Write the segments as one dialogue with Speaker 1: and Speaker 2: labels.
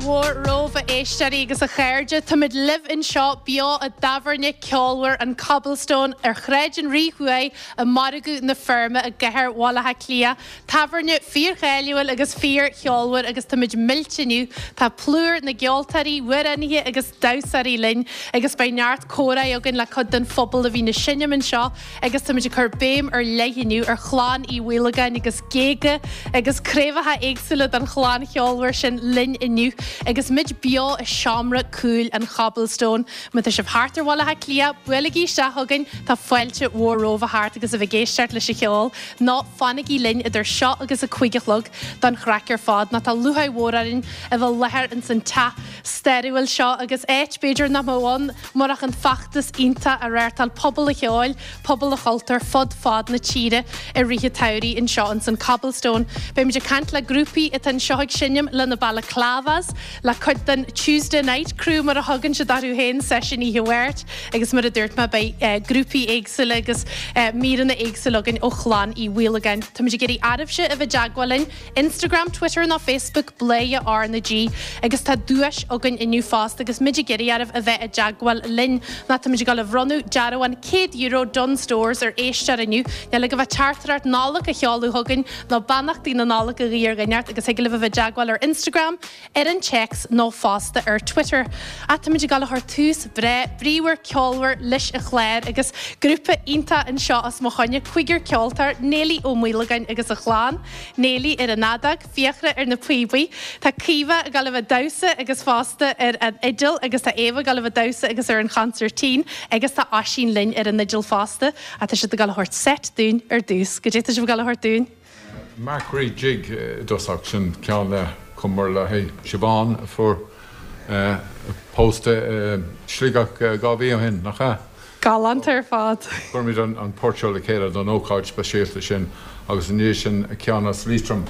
Speaker 1: mhór romhaibh a éisteoirí agus a chairde. Táimid libh anseo beo i dtábhairne ceolmhar an Cobblestone ar Shráid an Rí Thuaidh i Margadh na Feirme i gcathair Bhaile Átha Cliath. Tábhairne fíorcháiliúil agus fíorcheolmhar agus táimid millte inniu. Tá plúr na gceoltóirí, amhránaithe agus damhsóirí linn agus beidh neart comhráidh againn le cuid den phobal a bhíonn ag seinm anseo agus táimid ag cur béim ar leith inniu ar chlann Uí Mhaolagáin agus géaga agus craobhacha éagsúla den chlann cheolmhar sin linn inniu agus muid beo i seomra cúil an Chobblestone. Má tá sibh thart ar Bhaile Átha Cliath, buailigí isteach chugainn, tá fáilte mhór romhaibh a theacht agus a bheith ag éisteacht leis an cheol. Nó fanaigí linn idir seo agus a 5 a chlog don chraic ar fad, nó tá lúcháir mhór orainn a bheith i láthair ins an teach stairiúil seo agus áit, b'fhéidir, nach mbeadh ann murach an feachtas iontach a reáchtáil pobal an cheoil, pobal an chultúir fud fad na tíre i rith an tsamhraidh anseo ins an Cobblestone. Beimid ag caint le grúpaí atá anseo ag seinm, le na Balaclavas, le cuid den Tuesday Night Crew mar a thugann siad orthu féin, seisiún oíche Mháirt agus mar a dúirt mé beidh grúpaí éagsúla agus míreanna éagsúla againn ó chlann Uí Mhaolagáin. Táimid ag iarraidh oraibhse a bheith i dteagmháil linn, Instagram, Twitter nó Facebook, Bladhaire R na G agus tá duais againn inniu fosta agus muid ag iarraidh oraibh a bheith i dteagmháil linn nó táimid ag dul a bhronnadh dearbhán €100 Dunnes Stores ar éisteoir inniu. Níl ach a bheith teachtaireacht Nollag a sheoladh chugainn nó beannachtaí na Nollag a ghuí ar dhuine inteacht agus thig libh a bheith i dteagmháil ar Instagram, ar an téacs nó fosta ar Twitter. Ach táimid ag dul a chur tús breá bríomhar ceolmhar leis an chlár agus grúpa iontach anseo os mo choinne, cúigear ceoltóir, Néilí Ó Maolagáin agus a chlann, Néilí ar an fheadóg, Fiachra ar na píobaí, tá Caoimhe ag dul a bheith ag damhsa agus fosta ar an fhidil agus tá Éabha ag dul a bheith ag damhsa agus ar an chonsairtín agus tá Oisín linn ar an fhidil fosta. Ach tá siad ag dul a thabhairt seit dúinn ar dtús. Goidé tá sibh ag dul a thabhairt dúinn?
Speaker 2: Markree Jig i dtosach, sin ceann a chumamar le haghaidh Siobhán a fuair pósta i Sligeach 2 mhí ó shin, nach ea?
Speaker 1: Galánta ar fad.
Speaker 2: Chuir muid an port seo le chéile don ócáid speisialta sin agus i ndiaidh sin ceann as Liatroim,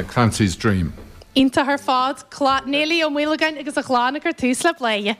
Speaker 2: Clancy's Dream.
Speaker 1: Iontach ar fad. Néilí Ó Maolagáin agus a chlann ag cur tús le Bladhaire.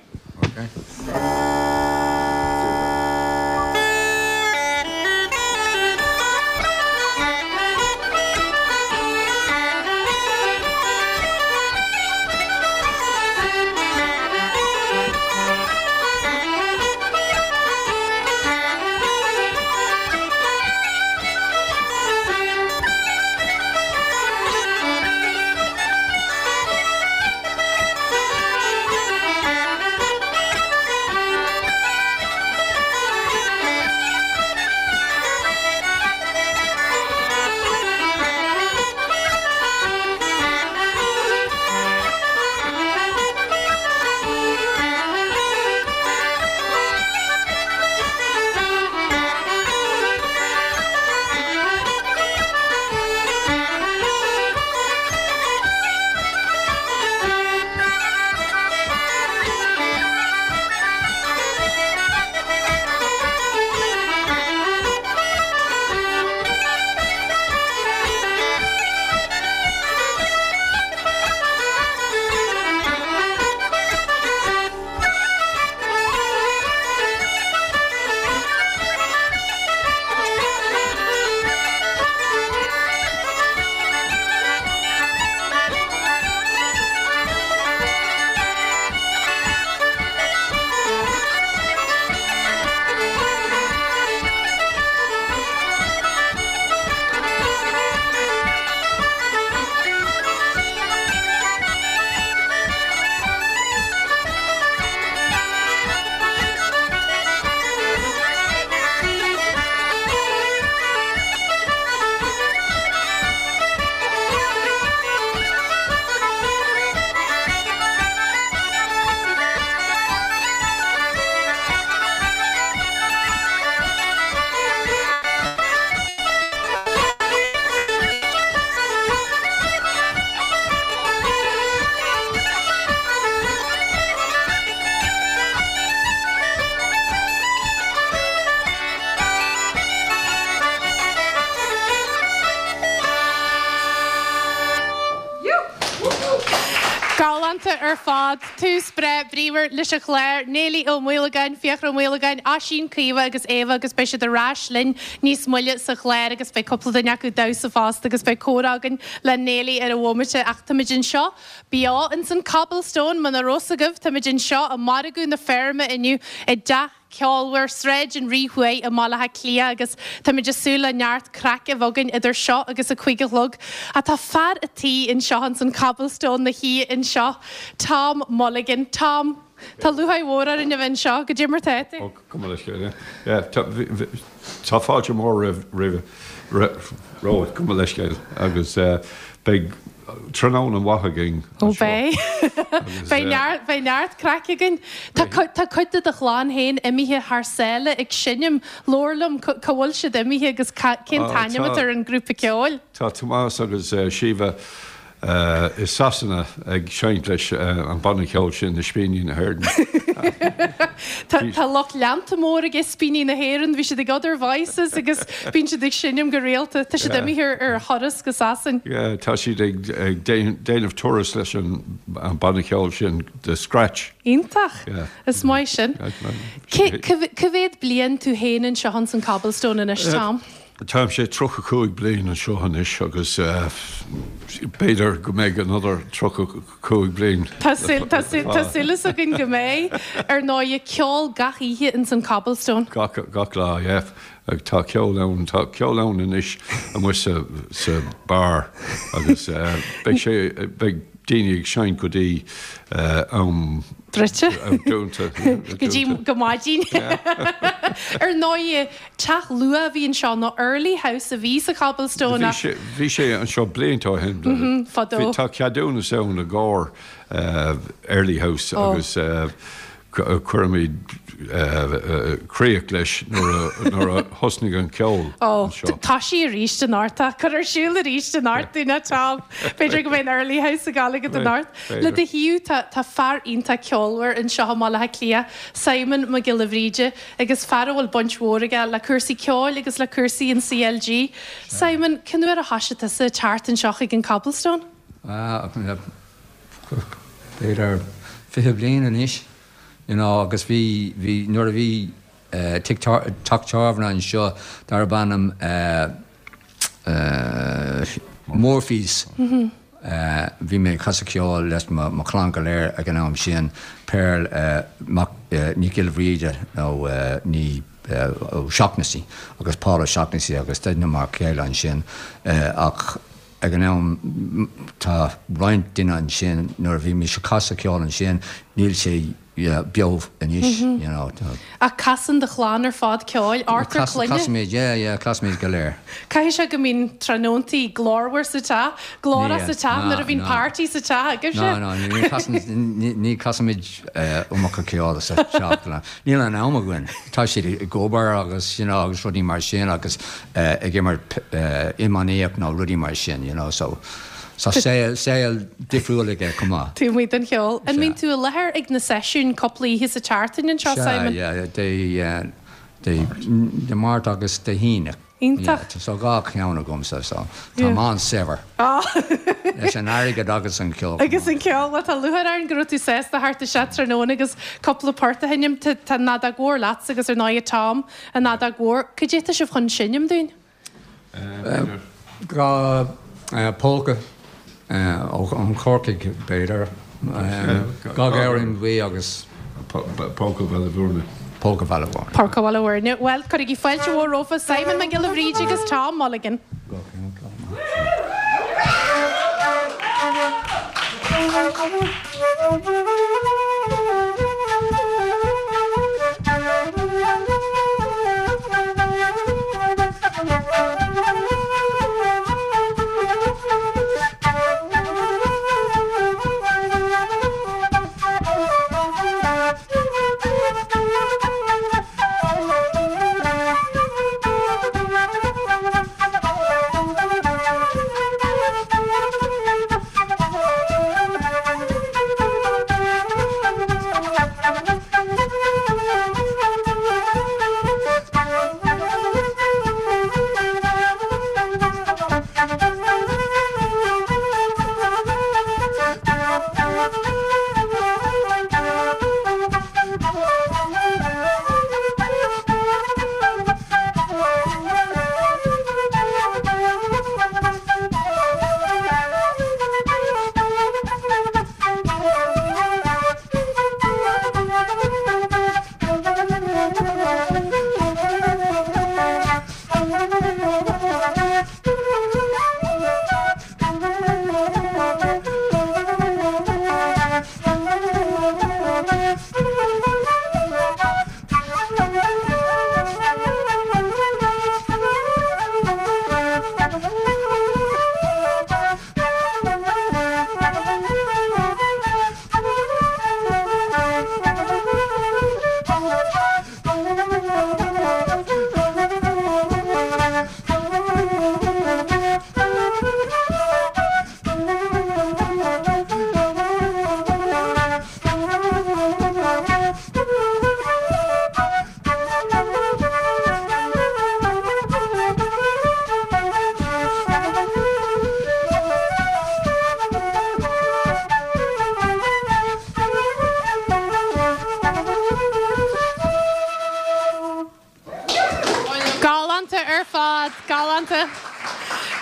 Speaker 1: Iontach ar fad. Tús breá bríomhar leis an chlár. Néilí Ó Maolagáin, Fiachra Ó Maolagáin, Oisín, Caoimhe agus Éabha agus beidh siad ar ais linn níos moille sa chlár agus beidh cúpla duine acu ag damhsa fosta agus beidh comhrá againn le Néilí ar an bhomaite ach táimid anseo beo ins an Cobblestone muna raibh 's agaibh táimid anseo i Margadh na Feirme inniu i dTeach Ceolmhar, Sráid an Rí Thuaidh i mBaile Átha Cliath agus táimid ag súil le neart craic a bheith againn idir seo agus a 5 a chlog. Ach tá fear a' tí anseo ins an Cobblestone 'na shuí anseo, Tom Mulligan. Tom, tá lúcháir mhór orainn a bheith anseo. Goidé mar tá tú?
Speaker 2: Ó, gabh mo leithscéal, yeah. Tá fáilte mhór roimh, romhat, gabh mo leithscéal, agus beidh tráthnóna mhaith againn
Speaker 1: Ó beidh. Beidh neart, beidh neart craic againn. Tá tá cuid de do chlann féin imithe thar sáile ag seinm. Labhair liom, cá bhfuil siad imithe agus cén t-ainm atá ar an grúpa ceoil?
Speaker 2: Tá Tomás agus Síomha i Sasana ag seinnt leis an banna ceoil sin, Ispíní na hÉireann.
Speaker 1: Tá lucht leanta mór ag Ispíní na hÉireann, bhí siad ag Other Voices agus bíonn siad ag seinm go rialta. Tá siad imithe ar thuras go Sasain.
Speaker 2: Yeah, tá siad ag déanamh turas leis an banna ceoil sin, The Scratch.
Speaker 1: Iontach! Is maith sin. Cá mhéad bliain tú féin anseo ins an Cobblestone anois, Tom?
Speaker 2: Táimse 35 bliain anseo anois agus b'fhéidir go mbeidh another 35 bliain.
Speaker 1: Tá súil againn go mbeidh. Ar ndóigh, ceol gach oíche ins an Cobblestone.
Speaker 2: Gach, gach lá, yeah. Tá ceol ann, tá ceol ann anois amuigh sa, sa bar agus beidh sé, beidh daoine ag seinnt go dtí am
Speaker 1: druidte.
Speaker 2: Am dúnta.
Speaker 1: Go dtí go maidin. Ar ndóigh, teach luath a bhí anseo, nó Early House a bhí sa Cobblestone
Speaker 2: ach. Bhí sé anseo blianta ó shin.
Speaker 1: Fadó.
Speaker 2: Tá ceadúnas ann i gcomhair Early House agus Cuirimid críoch leis nuair a thosnaigh an ceol
Speaker 1: anseo. Ó, toisigh arís anocht, cuir ar siúl arís anocht dúinn é, Tom. B'fhéidir go mbeidh an Early House ag gabháil agat anocht. Le do thaobh, tá fear iontach ceolmhar anseo i mBaile Átha Cliath, Simon Mac Giolla Bhríde, agus fear a bhfuil baint mhór aige le cúrsaí ceoil agus le cúrsaí an CLG. Simon, cén uair a thoisigh tusa ag teacht anseo chuig an Cobblestone?
Speaker 3: B'fhéidir 20 bliain anois, you know, agus bhí, bhí, nuair a bhí tigh, teach tábhairne anseo darb ainm Murphy's, bhí mé ag casadh ceoil leis mo, mo chlann go léir ag an am sin, Pearl Mac, Nic Giolla Bhríde nó ní O'Shaughnessy agus Paul O'Shaughnessy agus d'fheiceamar a chéile ansin ach Ag an am, tá roinnt duine ansin, nuair a bhí mise ag casadh ceoil ansin, níl sé beo anois, you know.
Speaker 1: Ach casann do chlann ar fad ceoil, ochtar clainne?
Speaker 3: Casaimid, yeah, yeah, casaimid go léir.
Speaker 1: Caithfidh sé go mbíonn tráthnóntaí glórmhar sa teach, glórach sa teach nuair a bhíonn party sa teach agaibhse?
Speaker 3: No, no, ní chasaimid iomarca ceoil sa teach, níl an am againn. Tá siad ag obair agus, you know, agus rudaí mar sin agus ag imirt iománaíocht nó rudaí mar sin, you know, so tá saol, saol difriúil aige chomh maith.
Speaker 1: Taobh amuigh den cheol. An mbíonn tú i láthair ag na seisiúin cúpla oíche sa tseachtain anseo, Simon?
Speaker 3: Sea, yeah, Dé, Dé, Dé Máirt agus Dé hAoine.
Speaker 1: Iontach.
Speaker 3: Yeah, so dhá cheann agamsa, so táim an-saibhir. Leis an airgead agus an ceol.
Speaker 1: Agus an ceol, bhuel tá lúcháir orainn go raibh tú sásta theacht isteach tráthnóna agus cúpla port a sheinm. Tá an fheadóg mhór leatsa agus ar ndóigh Tom An fheadóg mhór. Cad é atá sibh chun seinm dúinn?
Speaker 3: Dhá polca ó Chorcaigh, b'fhéidir. Dhá Ghamhrain Bhuí agus.
Speaker 2: Polca Bhaile Bhúirne.
Speaker 3: Polca Bhaile Bhúirne.
Speaker 1: Polca Bhaile Bhúirne. Bhuel, cuirigí fáilte mhór rompu, Simon Mac Giolla Bhríde agus Tom Mulligan. Galánta ar fad, galánta.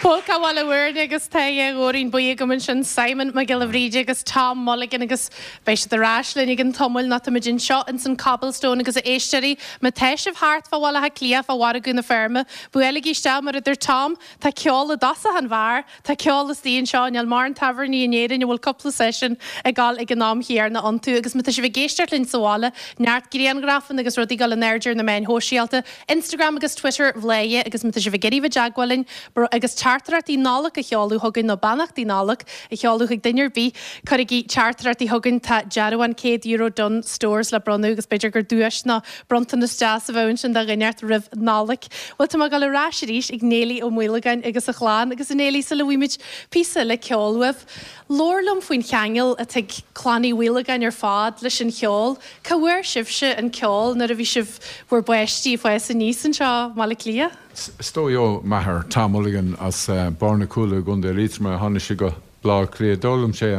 Speaker 1: Pólca Bhaile Mhúirne agus Tadhg Góirín Buí agam ansin, Simon Mac Giolla Bhríde agus Tom Mulligan agus beidh siad ar ais linn i gcionn tamaill nó táimid anseo ins an Cobblestone agus a éisteoirí, má tá sibh thart fá Bhaile Átha Cliath, fá Mhargadh na Feirme, buailigí isteach mar a deir Tom, tá ceol i dtosach an bheáir. Tá ceol istigh anseo, níl mórán tábhairní in Éirinn a bhfuil cúpla seisiún ag dul ag an am chéanna iontu agus má tá sibh ag éisteacht linn sa bhaile, neart grianghrafanna agus rudaí ag dul in airde ar na meáin shóisialta, Instagram agus Twitter Bhladhaire agus má tá sibh ag iarraidh bheith i dteagmháil linn agus teachtaireachtaí Nollag a sheoladh chugainn nó beannachtaí Nollag a sheoladh chuig duine ar bith, cuirigí teachtaireachtaí chugainn, tá dearbhán €100 Dunnes Stores le bronnadh agus b'fhéidir gur duais nó Bronntanas deas a bheadh ansin do dhuine inteacht roimh Nollaig. Bhuel, tá mé ag dul ar ais arís ag Néilí Ó Maolagáin agus a chlann. Agus a Néilí, sula bhfaighimid píosa eile ceoil uaibh, labhair liom faoin cheangal atá ag clann Uí Mhaolagáin ar fad leis an cheol. Cá bhfuair sibhse an ceol nuair a bhí sibh bhur bpáistí ag fás aníos anseo i mBaile Átha Cliath?
Speaker 4: Is dóigh ó m'athair, Tom Mulligan, as Barr na Cúile i gContae Liatroma a tháinig sé go Baile Átha Cliath. D'fhoghlaim sé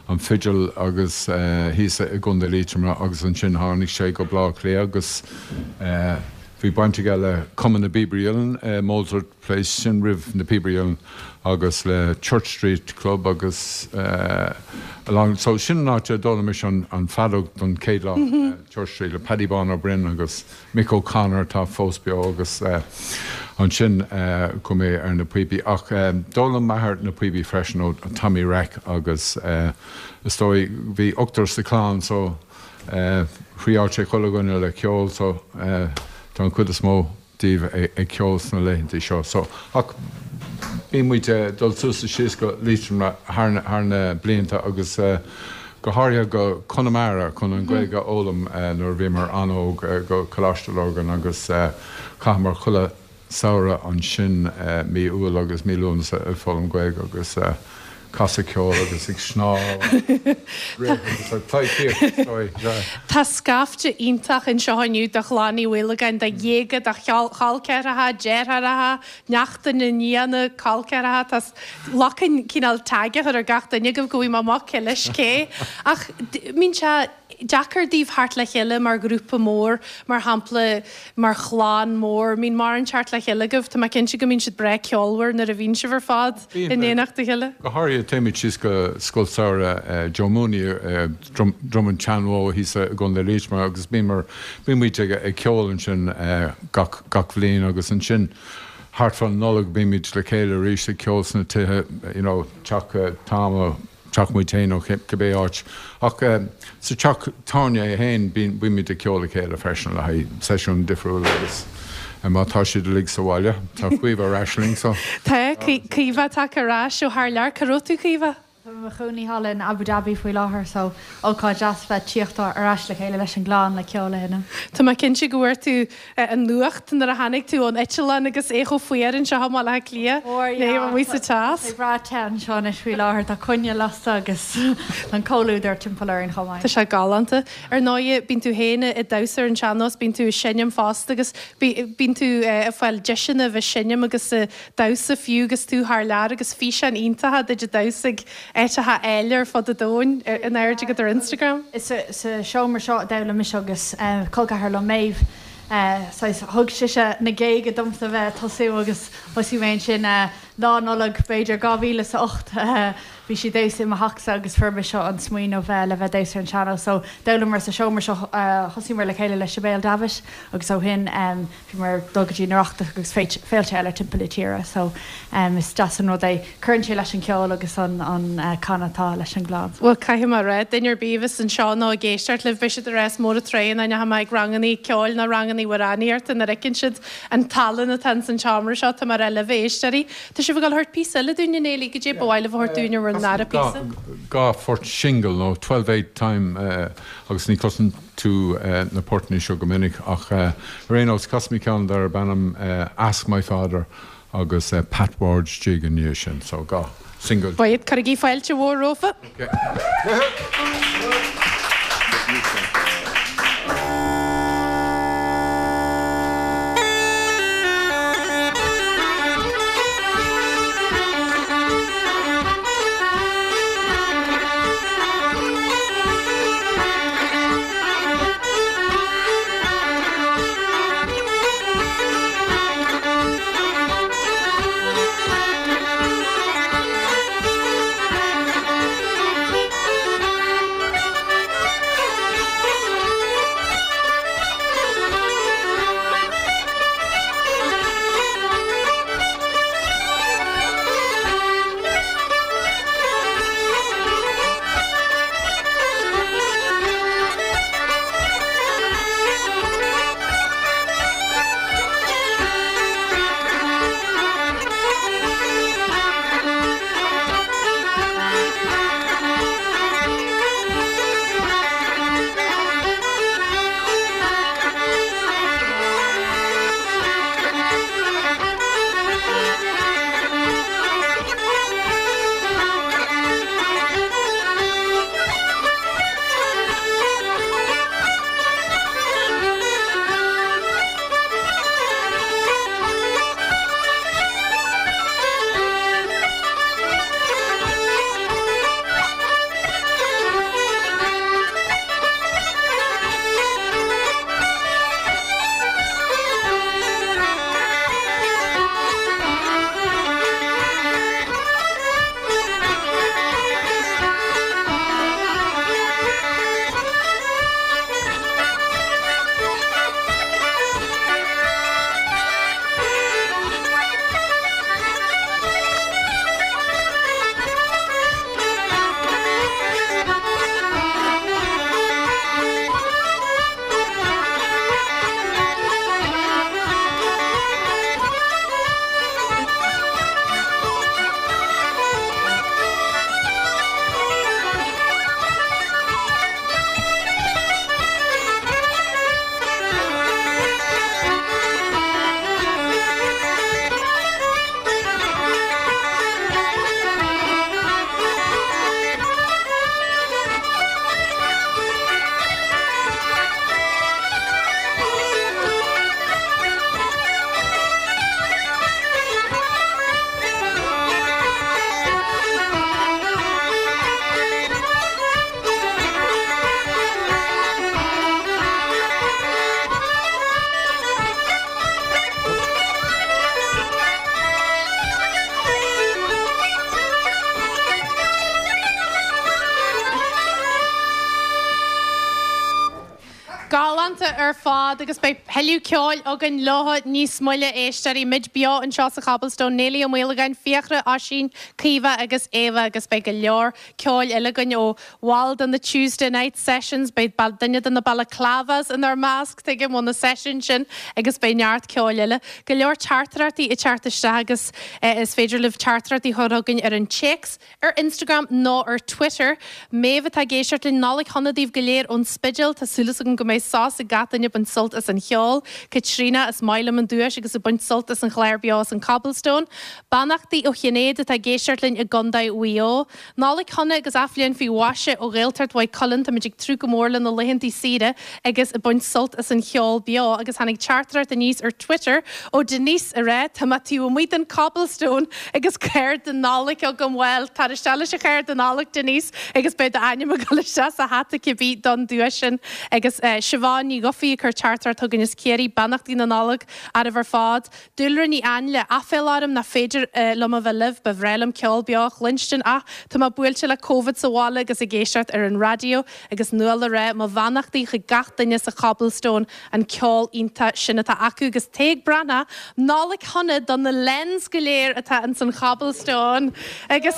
Speaker 4: an fidil agus thíos i gContae Liatroma agus ansin tháinig sé go Baile Átha Cliath agus bhí baint aige le Cumann na bPíobairí Uilleann i Mozart Place, sin roimh na Píobairí Uilleann, agus le Church Street Club agus along so sin an áit a d'fhoghlaim mise an feadóg don chéad lá, Church Street le Paddy Bán Ó Broin agus Mick O'Connor atá fós beo agus ansin chuaigh mé ar na píopaí. Ach d'fhoghlaim m'athair na píopaí freisin ó Tommy Reck agus is dóigh bhí ochtar sa chlann so thriáil sé chuile dhuine le ceol so tá an chuid is mó díobh ag ceol sna laethanta seo. So ach bíonn muid ag dul suas is síos go Liatroim thar na blianta agus go háirithe go Conamara chun an Ghaeilge a fhoghlaim nuair a bhíomar an-óg, go Coláiste Lurgan agus chaitheamar chuile samhradh ansin, mí Iúil agus mí Lúnasa ag foghlaim Gaeilge agus casadh ceoil agus ag snámh ag rith agus ag pleidhcíocht is dóigh.
Speaker 1: Tá scaifte iontach anseo inniu de chlann Uí Mhaolagáin, de ghéaga, de chol ceathracha, deartháireacha, neachtanna, nianna, col ceathracha, tá lucan cineál tag a chur ar gach duine agaibh go bhfaighidh mé amach cé leis cé. Ach mbíonn sé deacair daoibh theacht le chéile mar ghrúpa mór, mar shampla mar chlann mór, mbíonn mórán teacht le chéile agaibh? Tá mé cinnte go mbíonn siad breá ceolmhar nuair a bhíonn sibh ar fad in éineacht a chéile.
Speaker 4: Go háirithe téimid síos go Scoil Samhraidh Joe Mooney i Droim an tSeanbhó thíos i gContae Liatroma agus bíonn muid ag ceol ansin gach gach bhliain agus ansin thart fán Nollaig bímid le chéile arís ag ceol sna tithe, you know, teach Tom nó teach muid féin nó cibé áit. Ach sa teach tábhairne é féin bímid ag ceol le chéile freisin le haghaidh seisiúin difriúla agus má tá siad uilig sa bhaile, tá Caoimhe ar ais linn so.
Speaker 1: Tá, Caoimhe tagtha ar ais ó thar lear. Cá raibh tú Caoimhe?
Speaker 5: Tá mé i mo chónaí thall in Abu Dhabi faoi láthair so ócáid deas bheith tíocht ar ais le chéile leis an gclann le ceol a sheinm.
Speaker 1: Tá mé cinnte go bhfuair tú an nuacht nuair a tháinig tú ón eitleán agus é chomh fuar anseo i mBaile Átha Cliath,
Speaker 5: ní amuigh sa teas. Tá sé breá te anseo anois faoi láthair, tá coinneal lasta agus tá an comhluadar timpeall orainn chomh maith.
Speaker 1: Tá sé galánta. Ar ndóigh, bíonn tú féin ag damhsa ar an sean-nós, bíonn tú ag seinm fosta agus bíonn tú ag fáil deiseanna a bheith ag seinm agus ag damhsa fiú agus tú thar lear agus físeáin iontacha duit ag damhsa ag áiteacha áille ar fud an domhain in airde agat ar Instagram.
Speaker 5: Is sa seomra seo a d'fhoghlaim mise agus col ceathar liom, Méabh, saghas, thug sise na géaga domsa bheith ag tosú agus thosaigh mé ansin Lá Nollag b'fhéidir 2008. Bhí sí ag damhsa i mo theachsa agus fuair mise an smaoineamh le bheith ag damhsa ar an sean-nós. So d'fhoghlamar sa seomra seo, thosaíomar le chéile le Sibéal Davitt agus ó shin bhíomar ag dul go dtí an Oireachtas agus féilte eile timpeall na tíre. So is deas an rud é. Cuireann sé leis an cheol agus an canadh atá leis an gclann.
Speaker 1: Bhuel, caithfidh mé a rá, duine ar bith a bheas anseo nó ag éisteacht libh, beidh siad ag rá is mór an trua nach ndeachaigh mé ag rangannaí ceoil ná rangannaí amhránaíochta nuair a fheiceann siad an tallann atá ins an tseomra seo, tá mé ag rá libh, a éisteoirí. Tá sibh ag dul a thabhairt píosa eile dúinn, a Néilí, goidé ba mhaith libh a thabhairt dúinn ar bhur ndara píosa?
Speaker 4: Dhá phort singil nó 12/8 time agus ní chloiseann tú na portanna seo go minic ach ar aon nós casfaidh mé ceann darb ainm Ask My Father agus Pat Ward's Jig i ndiaidh sin so dhá single.
Speaker 1: Bhuel, cuirigí fáilte mhór rompu. ar fad agus beidh tuilleadh ceoil againn leo níos moille, éisteoirí. Muid beo anseo sa Chobblestone, Neilí Ó Maolagáin, Fiachra, Oisín, Caoimhe agus Éabha agus beidh go leor ceoil eile againn ó bhaill de na Tuesday Night Sessions. Beidh duine de na Balaclavas inár measc, tuigim, ó na seisiúin sin agus beidh neart ceoil eile. Go leor teachtaireachtaí ag teacht isteach agus is féidir libh teachtaireachtaí a chur chugainn ar an téacs ar Instagram nó ar Twitter. Méabh atá ag éisteacht linn, Nollaig shona daoibh go léir ón Spidéal. Tá súil agam go mbeidh sos ag gach duine ag baint sult as an cheol. Caitríona, is maith liom an duais agus ag baint sult as an chlár beo as an Cobblestone. Beannachtaí ó Shinéad atá ag éisteacht linn i gContae Mhaigh Eo. Nollaig shona agus athbhliain faoi mhaise ó Ghaeltacht Mhaigh Cuilinn. Táimid ag tnúth go mór le na laethantaí saoire agus ag baint sult as an cheol beo. Agus tháinig teachtaireacht aníos ar Twitter ó Denise ag rá, Tá mé taobh amuigh den Cobblestone agus cárta Nollag agam. Bhuel, tar isteach leis an chárta Nollag, Denise, agus beidh d'ainm ag dul isteach sa hata cibé don duais sin. Agus Siobhán Ní Dhufaigh ag cur teachtaireacht chugainn as Ciarraí, Beannachtaí na Nollag oraibh ar fad. Dúlra Ní Ainle, Aiféala orm nach féidir liom a bheith libh, ba bhreá liom ceol beo a chluinstin ach tá mé buailte le Covid sa bhaile agus ag éisteacht ar an raidió agus Nuala ag rá mo bheannachtaí chuig gach duine sa Chobblestone an ceol iontach sin atá acu agus Tadhg Breathnach, Nollaig shona do na Lens go léir atá ins an Chobblestone agus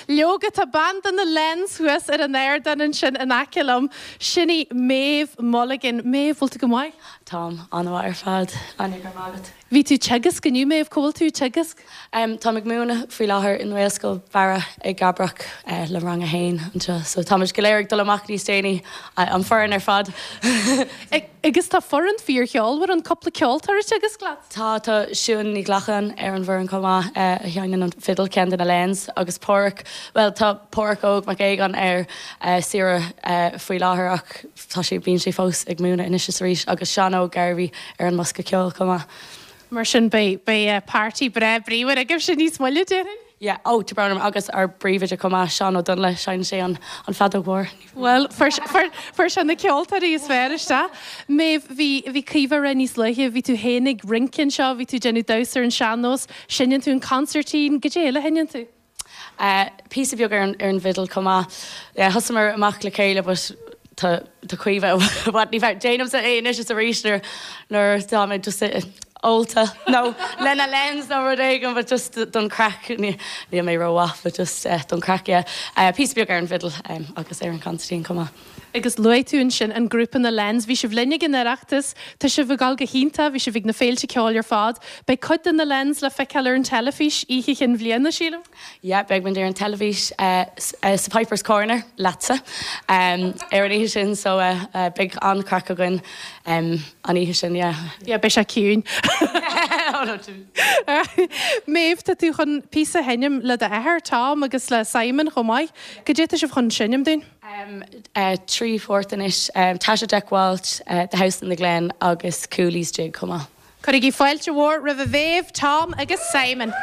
Speaker 1: leoga tá bean de na Lens thuas ar an ardán ansin in aice liom, sin í Méabh Mulligan. Méabh, bhfuil tú go maith?
Speaker 6: Táim an-mhaith ar fad, Áine, go raibh maith agat.
Speaker 1: Bhí tú ag teagasc inniu, Méabh, cá bhfuil tú ag teagasc?
Speaker 6: Táim ag múineadh faoi láthair i nGaelscoil Bharra i gCabrach le rang a haon anseo. So táimid go léir ag dul amach níos déanaí, an foireann ar fad.
Speaker 1: Agus tá foireann fíorcheolmhar ann, cúpla ceoltóir ag teagasc leat?
Speaker 6: Tá, tá Siún Ní Ghlacáin ar an bhfoireann chomh maith, a sheinneann an fidil, ceann de na Lens, agus Páraic, bhuel tá Páraic Óg Mac Aogáin ar saoire faoi láthair ach, Tá sé, bíonn sé fós ag múineadh anois is arís agus Seán Óg Garvey ar an mbosca ceoil chomh maith.
Speaker 1: Mar sin beidh, beidh party breá bríomhar agaibhse níos moille, déarfainn?
Speaker 6: Yeah, oh, tá brón orm, agus ár bpríomhoide chomh maith, Seán Ó Donnaile, seinneann sé an, an feadóg mhór.
Speaker 1: Bhuel, fuair, fuair, fuair sé na ceoltóirí is fearr isteach. Méabh, bhí, bhí Caoimhe ag rá níos luaithe, bhí tú féin ag rince anseo, bhí tú ag déanamh damhsa ar an sean-nós, seinneann tú an consairtín, goidé eile a sheinneann tú?
Speaker 6: Píosa beag ar an bhfidil chomh maith. Yeah, thosaíomar amach le chéile but tá tá Caoimhe i bhfad níos fearr. Déanaimse é anois is arís nuair nuair atá mé just ólta nó le na Lens nó rud éigin but just don craic níl mé rómhaith but just don craic yeah. Píosa beag ar an bhfidil agus ar an consairtín chomh maith.
Speaker 1: Agus luaigh tú ansin an grúpa na Lens. Bhí sibh linn ag an Oireachtas, tá sibh ag dul go hiontach, bhí sibh ag na féilte ceoil ar fad. Beidh cuid de na Lens le feiceáil ar an teilifís oíche Chinn Bhliana, sílim?
Speaker 6: Yeah, beidh muid ar an teilifís sa Pipers Corner, leatsa, ar an oíche sin so beidh an-chraic againn an oíche sin, yeah.
Speaker 1: Yeah, beidh sé ciúin. Méabh, tá tú chun píosa a sheinm le d'athair, Tom, agus le Simon chomh maith. Goidé tá sibh chun seinm dúinn?
Speaker 6: 3 phort anois, Taisce Jack Walsh, The House in the Glen agus Cooley's Jig chomh maith.
Speaker 1: Cuirigí fáilte mhór roimh Mhéabh, Tom agus Simon.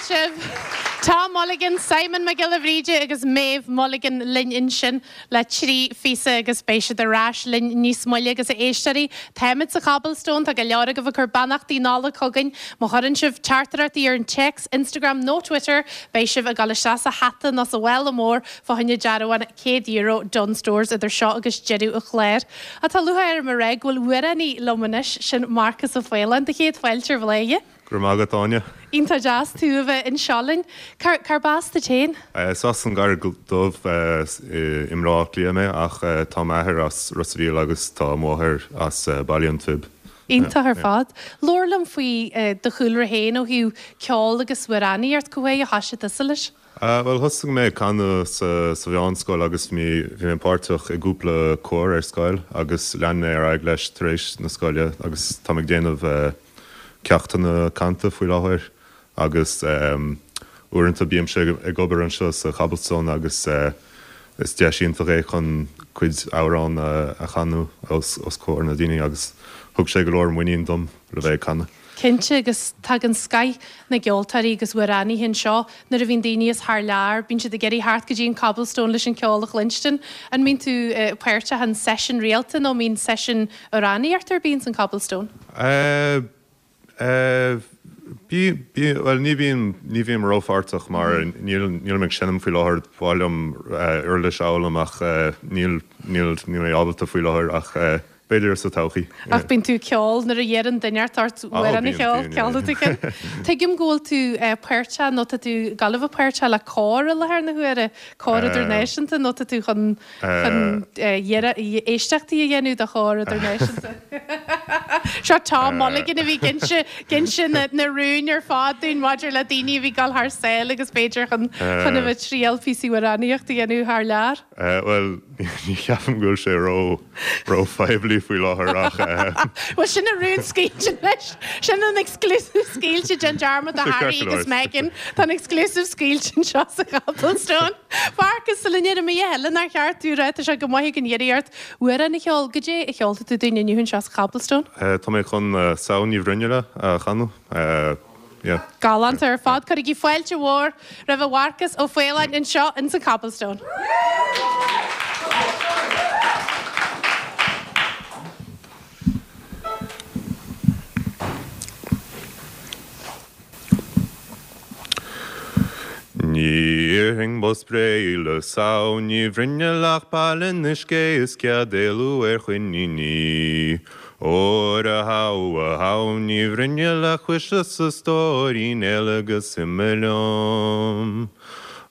Speaker 1: sibh! Tom Mulligan, Simon Mac Giolla Bhríde agus Méabh Mulligan linn ansin le 3 phíosa agus beidh siad ar ais linn níos moille agus a éisteoirí, táimid sa Chobblestone, tá go leor agaibh ag cur beannachtaí Nollag chugainn. Má chuireann sibh teachtaireachtaí ar an téacs, Instagram nó Twitter, beidh sibh ag dul isteach sa hata nó sa mhála mór fá choinne dearbhán €100 Dunnes Stores idir seo agus deireadh an chláir. Ach tá lúcháir orm a rá go bhfuil amhránaí liom anois, sin Marcas Ó Faoláin. Do chéad fáilte ar Bhladhaire.
Speaker 7: Go raibh maith agat, Áine.
Speaker 1: Iontach deas tú a bheith anseo linn. Cárb as duit féin?
Speaker 7: Is as an gCarraig Dhubh i mBaile Átha Cliath mé ach tá m'athair as Ros a' Mhíl agus tá mo mháthair as Baile an Phib.
Speaker 1: Iontach ar fad. Labhair liom faoi do chúlra féin ó thaobh ceol agus amhránaíocht, cá huair a thoisigh tusa leis?
Speaker 7: Bhuel, thosaigh mé ag canadh sa mheánscoil agus bhí mé páirteach i gcúpla cór ar scoil agus lean mé ar aghaidh leis tar éis na scoile agus táim ag déanamh ceachtanna canta faoi láthair agus uaireanta bímse ag obair anseo sa Chobblestone agus is deis iontach é chun cuid amhrán a chanadh os comhair na daoine agus thug sé go leor muinín dom le bheith ag canadh.
Speaker 1: Cinnte, agus tagann scoith na gceoltóirí agus amhránaithe anseo nuair a bhíonn daoine as thar lear, bíonn siad ag iarraidh theacht go dtí an Cobblestone leis an ceol a chluinstin. An mbíonn tú páirteach in seisiún rialta nó an mbíonn seisiún amhránaíochta ar bith ins an Cobblestone?
Speaker 7: Eh, eh, bí, bí, bhuel ní bhím, ní bhím rópháirteach mar níl, nílim ag seinm faoi láthair, ba mhaith liom uirlis a fhoghlaim ach níl, níl, níl mé ábalta faoi láthair ach eh, B'fhéidir sa todhchaí.
Speaker 1: Ach bíonn tú ag ceol nuair a iarrann duine ort amhrán a cheol, ceolfaidh tú ceann. Tuigim go bhfuil tú páirteach nó tá tú ag gabháil a bheith páirteach le cór i láthair na huaire, cór idirnáisiúnta nó tá tú chun chun éisteachtaí a dhéanamh do chór idirnáisiúnta. Seo Tom Mulligan a bhí ag inse ag inse na rúin ar fad dúinn maidir le daoine a bhí ag dul thar sáile agus b'fhéidir chun chun a bheith ag triail píosaí amhránaíochta a dhéanamh thar lear.
Speaker 7: Bhuel, ní cheapaim go bhfuil sé ró, ró-phoiblí faoi láthair ach.
Speaker 1: Bhuel, sin an rún scaoilte anois. Sin an exclusive scaoilte. Déan dearmad de Harry agus Meghan. Tá an exclusive scaoilte anseo sa Chobblestone. Mharcas, sula ndéarfaidh mé a thuilleadh nár cheart tú a rá, tá sé go maith againn iarraidh ort amhrán a cheol. Goidé a cheolfaidh tú dúinn inniu anseo sa Chobblestone?
Speaker 7: Tá mé chun Samhain Ní Bhruinnille a chanadh. Yeah.
Speaker 1: Galánta ar fad. Cuirigí fáilte mhór roimh Mharcas Ó Faoláin anseo ins an Cobblestone.
Speaker 7: Ní iarrfainn bos spréidh le Samhain Ní Bhruinnille ach pailin uisce is cead éalú ar choiníní. Óir a shamh, a Shamhain Ní Bhruinnille a chois is a stóirín éalaigh agus imigh liom.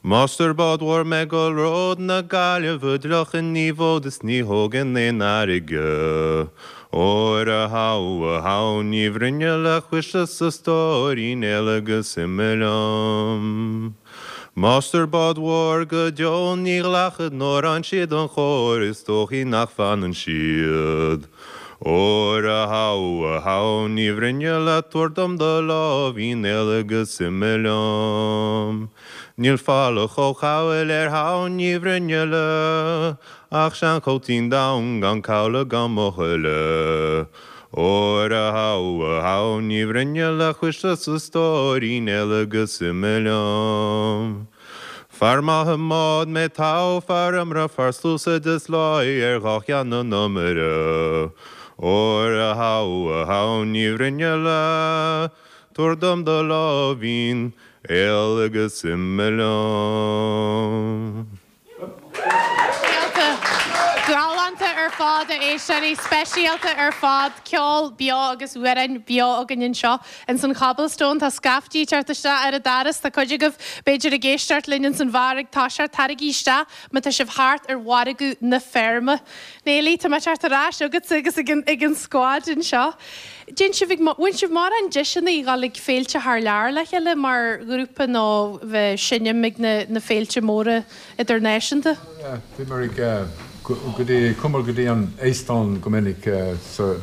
Speaker 7: Máistir báid mhóir mé go ród na Gaillimhe d'fhliuchfainn ní bhfód is ní thógfainn aon fhairrge. Óir a shamh, a Shamhain Ní Bhruinnille a chois is a stóirín éalaigh agus imigh liom. Máistir báid mhóir go deo ní ghlacfad nuair fhaigheann siad an chóir is dóichí nach bhfanann siad. Óir a shamh, a Shamhain Ní Bhruinnille tabhair dom do láimhín éalaigh agus imigh liom. Níl folach ó chabhail ar Shamhain Ní Bhruinnille ach seanchóitín donn gan cabhlach gan buachaille. Óir a shamh, a Shamhain Ní Bhruinnille a chois is a stóirín éalaigh agus imigh liom. Fear maith i mbád mé togha fear iomaire fear sluasaid is láí ar dhá cheann an iomaire. Óir a shamh, a Shamhain Ní Bhruinnille tabhair dom do láimhín éalaigh agus imigh liom.
Speaker 1: Speisialta. Galánta ar fad, a éisteoirí. Speisialta ar fad. Ceol beo agus amhráin beo againn anseo ins an Chobblestone. Tá scaiftí ag teacht isteach ar an doras. Tá cuid agaibh, b'fhéidir, ag éisteacht linn ins an bheár ag toiseacht. Taraigí isteach má tá sibh thart ar mhargadh na feirme. Neilí, tá mé ag teacht ar ais chugatsa agus ag an scuad anseo. Déan sibh ag, bhain sibh mórán deiseanna a dhul ag féilte thar lear le chéile mar ghrúpa nó bheith seinm ag na na féilte móra idirnáisiúnta?
Speaker 4: Yeah, bhíomar ag, go dtí, chuamar go dtí an Eastóin go minic sa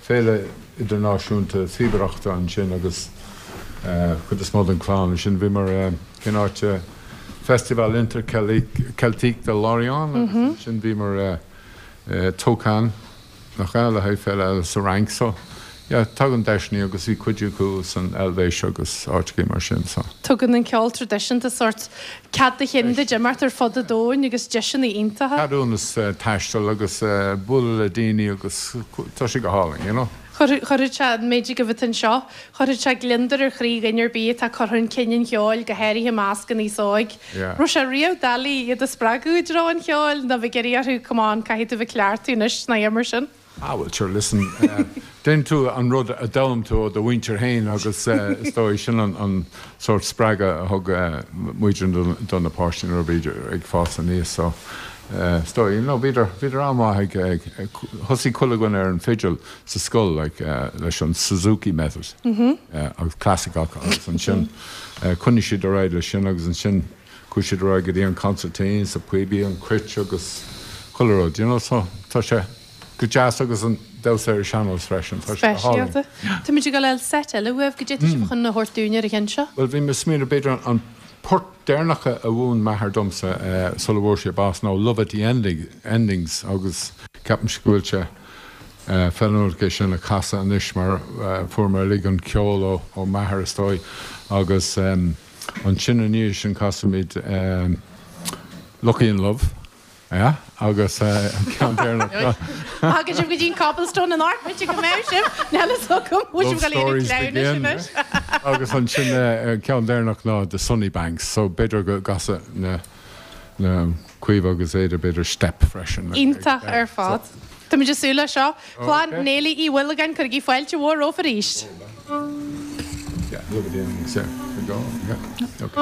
Speaker 4: Féile Idirnáisiúnta Phíobaireachta ansin agus cuid is mó den chlann ansin. Bhíomar, cén áit, Festival Interceltique de Lorient agus ansin bhíomar Tocan. Nach ea, le haghaidh féile eile sa Fhrainc so. yeah, tagann deiseanna agus bhí cuid acu san Eilvéis agus áiteachaí mar sin so.
Speaker 1: Tugann an ceol traidisiúnta sórt cead do chinn duit imeacht ar fud an domhain agus deiseanna iontacha.
Speaker 4: Ceadúnas taistil agus bualadh le daoine agus tá sé go hálainn, you know.
Speaker 1: Chuirfeadh sé, an méid agaibh atá anseo, chuirfeadh sé gliondar ar chroí dhuine ar bith atá ag cur chun cinn an cheoil, go háirithe i measc an aos óig. Raibh sé riamh doiligh iad a spreagadh i dtreo an cheoil nó bheith ag iarraidh orthu come on, caithfidh tú bheith ag cleachtadh anois nó mar sin?
Speaker 4: Ah bhuel sure, listen, déanann tú an rud a d'fhoghlaim tú ó do mhuintir féin agus is dóigh sin an sórt spreagadh a thug muid do na páistí nuair a bhíodar ag fás aníos so is dóigh, you know, bhíodar, bhíodar an-mhaith ag, thosaigh chuile dhuine ar an fidil sa scoil like leis an Suzuki method agus clasaiceach agus ansin choinnigh siad ar aghaidh leis sin agus ansin chuaigh siad ar aghaidh go dtí an consairtín sa píobaí, an cruit agus chuile rud, you know, so tá sé go deas agus an damhsa ar an sean-nós freisin, tá sé go hálainn.
Speaker 1: Speisialta. Táimid ag dul a fháil seit eile uaibh, goidé atá sibh chun a thabhairt dúinn ar an cheann seo?
Speaker 4: Bhuel, bhí mé ag smaoineamh b'fhéidir an port deireanach a mhúin m'athair domsa sula bhfuair sé bás ná Love at the Endings agus ceapaimse go bhfuil sé feiliúnach é sin a chasadh anois mar fuair mé uilig an ceol ó m'athair is dóigh agus Ansin i ndiaidh sin casfaimid Lucky in Love, yeah, agus an ceann deireanach ná.
Speaker 1: Thagann sibh go dtí an Cobblestone anocht, b'fhéidir go mbeidh sibh, níl fhios agam, bhfuil sibh ag dul a iarraidh cleamhnais anois?
Speaker 4: Agus ansin an ceann deireanach ná The Sunny Banks, so b'fhéidir go gcasfaidh na na Caoimhe agus Ada b'fhéidir step freisin.
Speaker 1: Iontach ar fad. Táimid ag súil leis seo. Clann Néilí Uí Mhuilleagáin, cuirigí fáilte mhór rompu arís.
Speaker 4: Yeah, love at the endings, yeah. We go, yeah. Okay.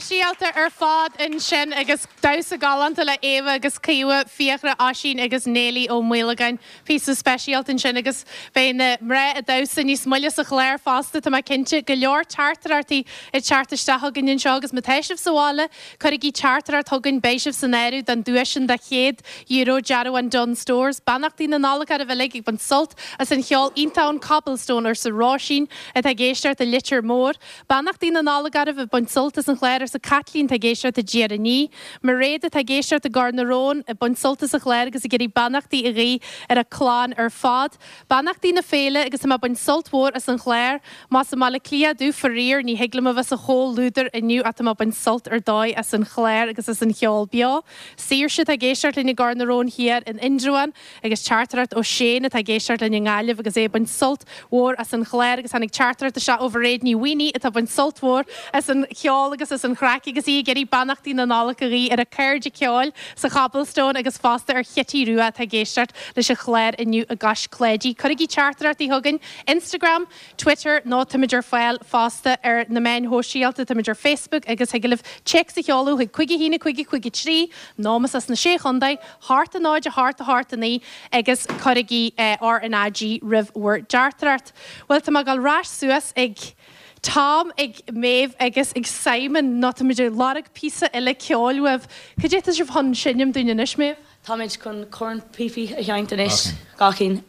Speaker 1: Speisialta ar fad ansin agus damhsa galánta le Éabha agus Caoimhe, Fiachra, Oisín agus Néilí Ó Maolagáin. Píosa speisialta ansin agus beidh na mná ag damhsa níos moille sa chlár fosta, tá mé cinnte. Go leor teachtaireachtaí ag teacht isteach chugainn anseo agus má tá sibh sa bhaile, cuirigí teachtaireacht chugainn, beidh sibh san áireamh don duais sin de €100 dearbhán Dunnes Stores. Beannachtaí na Nollag oraibh uilig ag baint sult as an cheol iontach ón Cobblestone arsa Róisín atá ag éisteacht i Leitir Móir. Beannachtaí na Nollag oraibh ag baint sult as an chlár arsa Caitlín atá ag éisteacht i dTír an Fhia. Mairéad atá ag éisteacht i gCor na Rón ag baint sult as an chlár agus ag iarraidh beannachtaí a ghuí ar a clann ar fad. Beannachtaí na féile agus tá mé ag baint sult mhór as an chlár. Más i mBaile Átha Cliath domh faraor ní thig liom a bheith sa chomhluadar inniu ach tá mé ag baint sult ar dóigh as an chlár agus as an cheol beo. Saoirse atá ag éisteacht linn i gCor na Rón Thiar in Indreabhán. Agus teachtaireacht ó Shane atá ag éisteacht linn i nGaillimh agus é ag baint sult mhór as an chlár agus tháinig teachtaireacht isteach ó Mhairéad Ní Mhaonaigh atá ag baint sult mhór as an cheol agus as an chraic agus í ag iarraidh beannachtaí na Nollag a ghuí ar a cairde ceoil sa Chobblestone agus fosta ar Chití Rua atá ag éisteacht leis an chlár inniu i gCois Cláidí. Cuirigí teachtaireachtaí chugainn, Instagram, Twitter nó táimid ar fáil fosta ar na meáin shóisialta, táimid ar Facebook agus thig libh téacs a sheoladh chuig 5 1 5 5 3 nó más as na Sé Chontae, 8 0 8 8 9 agus cuirigí RnaG roimh bhur dteachtaireacht. Bhuel, tá mé ag dul ar ais suas ag Tom, ag Méabh agus ag Simon nó táimid ag lorg píosa eile ceoil uaibh. Cad é atá sibh chun seinm dúinn anois, Méabh?
Speaker 6: Táimid chun cornphíopaí a sheinnt anois, gach cinn.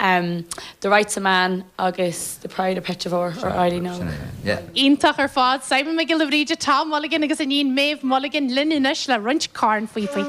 Speaker 6: The Rights of Man agus The Pride of Petravore or Eileen Óg.
Speaker 1: Iontach ar fad. Simon Mac Giolla Bhríde, Tom Mulligan agus iníon Méabh Mulligan linn anois le roinnt cornphíopaí.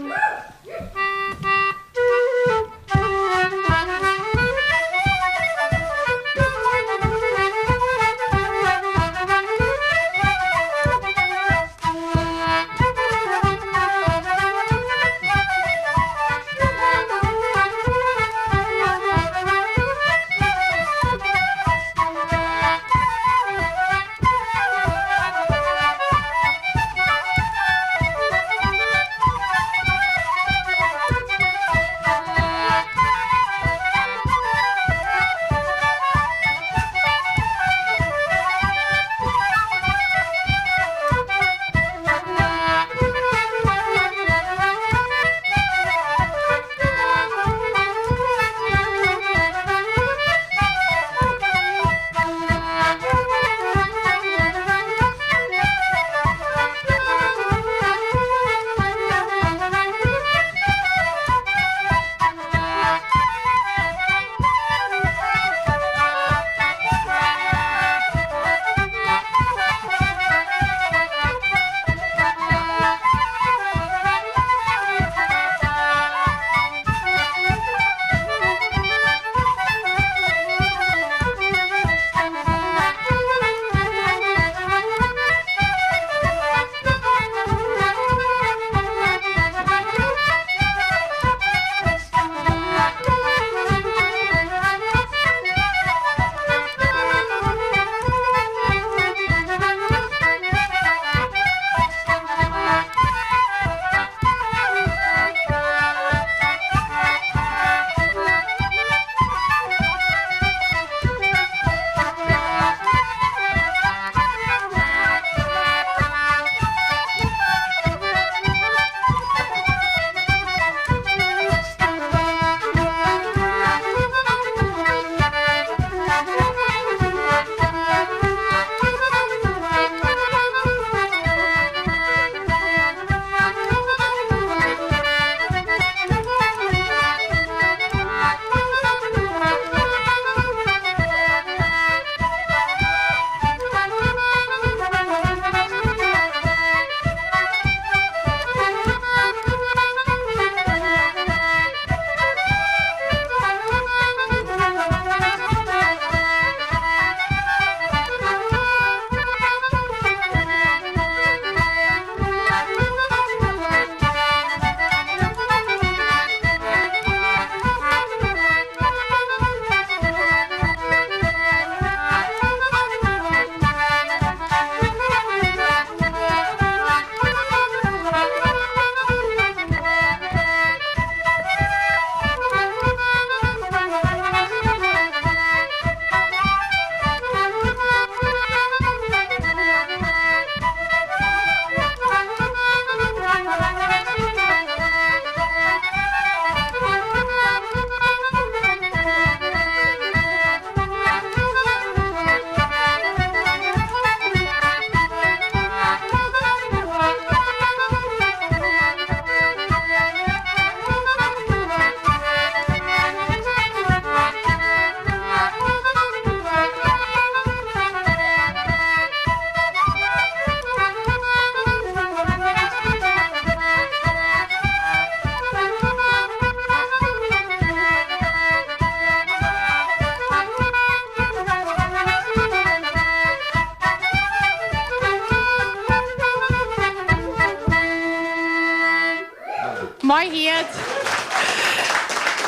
Speaker 1: Maith iad!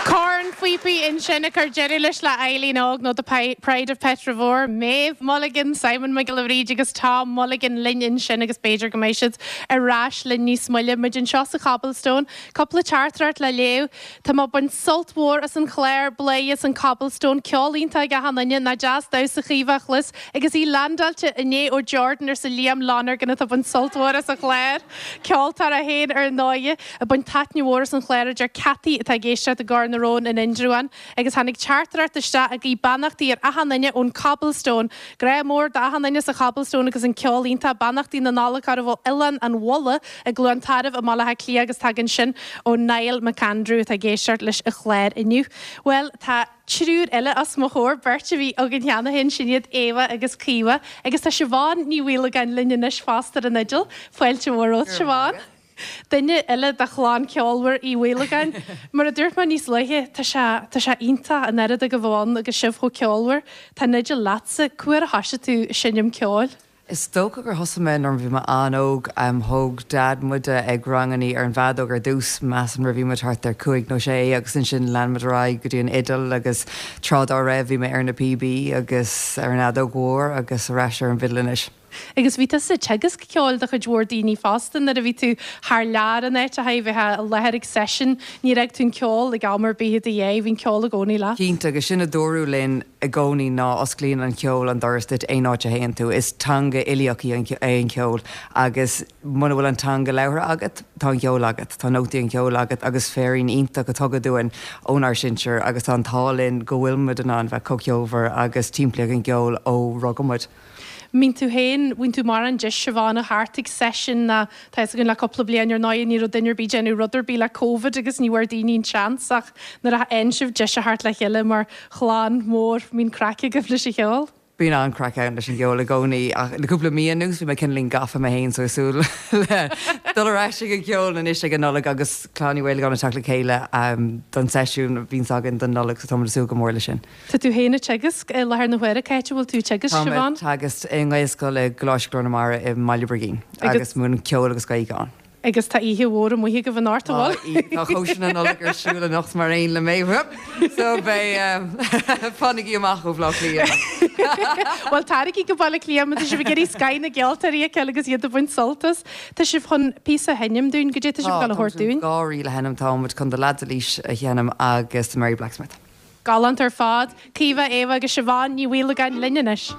Speaker 1: Cornphíopaí ansin ag cur deireadh leis le Eileen Óg nó The Pride of Petravore, Maeve Mulligan, Simon Mac Giolla Bhríde agus Tom Mulligan linn ansin agus b'fhéidir go mbeidh siad ar ais linn níos moille. Muid anseo sa Chobblestone. Cúpla teachtaireacht le léamh. Tá mé ag baint sult mhór as an chlár, Bladhaire as an Cobblestone, ceol iontach ag achan duine, nach deas damhsa Chaoimhe a chlos agus í landáilte inné ó Jordan arsa Liam Lonergan atá ag baint sult mhór as an chlár. Ceoltóir é féin ar ndóighe. Ag baint taitneamh mhór as an chlár a deir Cathy atá ag éisteacht i gCor na Rón in Indreabhán. Agus tháinig teachtaireacht isteach ag guí beannachtaí ar achan duine ón Cobblestone. Grá mór d'achan duine sa Chobblestone agus an ceol iontach. Beannachtaí na Nollag oraibh ó Oileán an Bhulla i gCluain Tarbh i mBaile Átha Cliath agus tagann sin ó Niall McAndrew atá ag éisteacht leis an chlár inniu. Bhuel, tá triúr eile os mo chomhair, beirt a bhí againn cheana féin, sin iad Éabha agus Caoimhe, agus tá Siobhán Ní Mhaolagáin linn anois fosta ar an fhidil. Fáilte mhór romhat, Siobhán. Duine eile de chlann ceolmhar Uí Mhaolagáin. Mar a dúirt mé níos luaithe, tá sé, tá sé iontach an oiread agaibh ann agus sibh chomh ceolmhar. Tá an fhidil leatsa. Cá huair a thoisigh tú ag seinm ceoil?
Speaker 8: Is dócha gur thosaigh mé nuair a bhí mé an-óg. Thóg Dad muide ag rangannaí ar an bhfeadóg ar dtús, measaim nuair a bhí muid thart ar chúig nó sé agus ansin lean muid ar aghaidh go dtí an fhidil agus tráth dá raibh bhí mé ar na píobaí agus ar an fheadóg mhór agus ar ais ar an bhfidil anois.
Speaker 1: Agus bhí tusa ag teagasc ceoil do chuid mhór daoine fosta nuair a bhí tú thar lear in áiteacha, bheifeá i láthair ag seisiún, níor fhág tú an ceol ag am ar bith i do dhiaidh, bhí an ceol i gcónaí leat.
Speaker 8: Cinnte, agus sin a dúradh linn i gcónaí ná osclaíonn an ceol an doras duit aon áit a théann tú. Is teanga uilíoch í é an ceol agus muna bhfuil an teanga labhartha agat, tá an ceol agat, tá nótaí an cheoil agat agus féirín iontach a tugadh dúinn ónár sinsir agus tá an t-ádh linn go bhfuil muid in ann bheith chomh ceolmhar agus timpeallaithe ag an gceol ó rugadh muid.
Speaker 1: Mbíonn tú féin, bhíonn tú mórán deis Siobhán a theacht ag seisiún ná tá fhios againn le cúpla bliain ar ndóigh ní raibh duine ar bith ag déanamh rud ar bith le Covid agus ní bhfuair daoine an seans ach nuair a fhaigheann sibh deis a theacht le chéile mar chlann mhór mbíonn craic agaibh leis an cheol.
Speaker 8: Bíonn an-chraic ann leis an gceol i gcónaí ach le cúpla mí anuas bhí mé cineáilín gafa mé féin so ag súil le dul ar ais ag an gceol anois ag an Nollaig agus Clann Uí Mhaolagáin ag teacht le chéile don seisiún a bhíonns againn don Nollaig so táimid ag súil go mór leis sin.
Speaker 1: Tá tú féin ag teagasc i láthair na huaire. Cá háit a bhfuil tú ag teagasc,
Speaker 8: Tá mé ag
Speaker 1: Siobhán?
Speaker 8: teagasc i nGaelscoil i gColáiste Ghlór na Mara i mBaile Brigín agus múinim ceol agus Gaeilge ann.
Speaker 1: Agus tá oíche mhór amuigh agaibh anocht, an
Speaker 8: bhfuil? Tá cóisir na Nollag ar siúl anocht mar aon le Méabh. So beidh, fanaigí amach ó Bhaile Átha Cliath.
Speaker 1: Bhuel, taraigí go Baile Átha Cliath má tá sibh ag iarraidh scoth na gceoltóirí a fheiceáil agus iad ag baint sult as. Tá sibh chun píosa a sheinm dúinn, goidé tá sibh ag dul a thabhairt dúinn?
Speaker 8: Tá dhá ríl a sheinm, tá muid chun The Lads of Laois a sheinm agus The Merry Blacksmith.
Speaker 1: Galánta ar fad. Caoimhe, Éabha agus Siobhán Ní Mhaolagáin linn anois.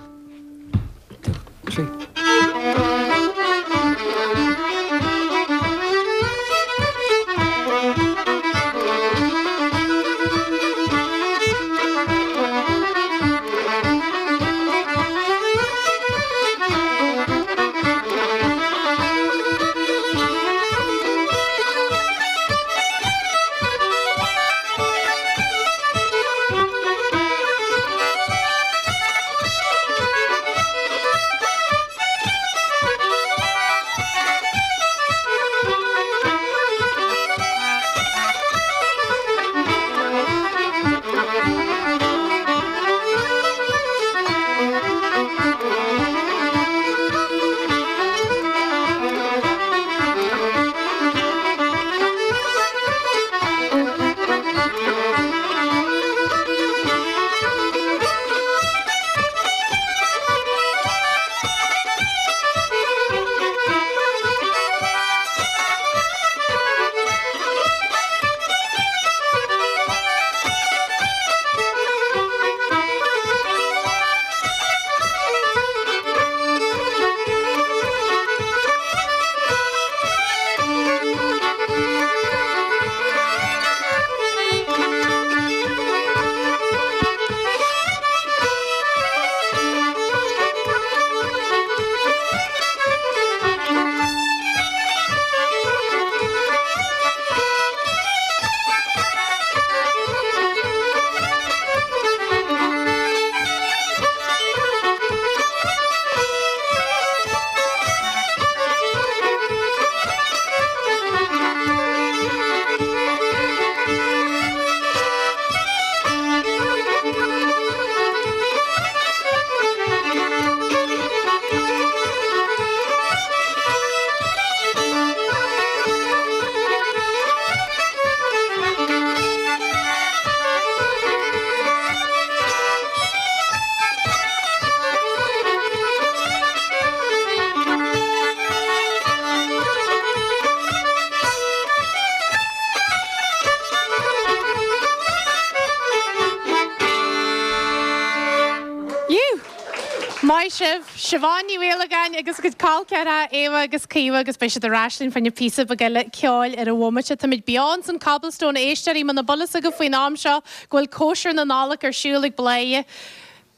Speaker 1: Maith sibh, Siobhán Ní Mhaolagáin agus a cuid col ceathracha Éabha agus Caoimhe agus beidh siad ar ais linn fá choinne píosa beag eile ceoil ar an bhomaite. Táimid beo ins an Cobblestone, a éisteoirí, muna bhfuil fhios agaibh faoin am seo go bhfuil cóisir na Nollag ar siúl ag Bladhaire.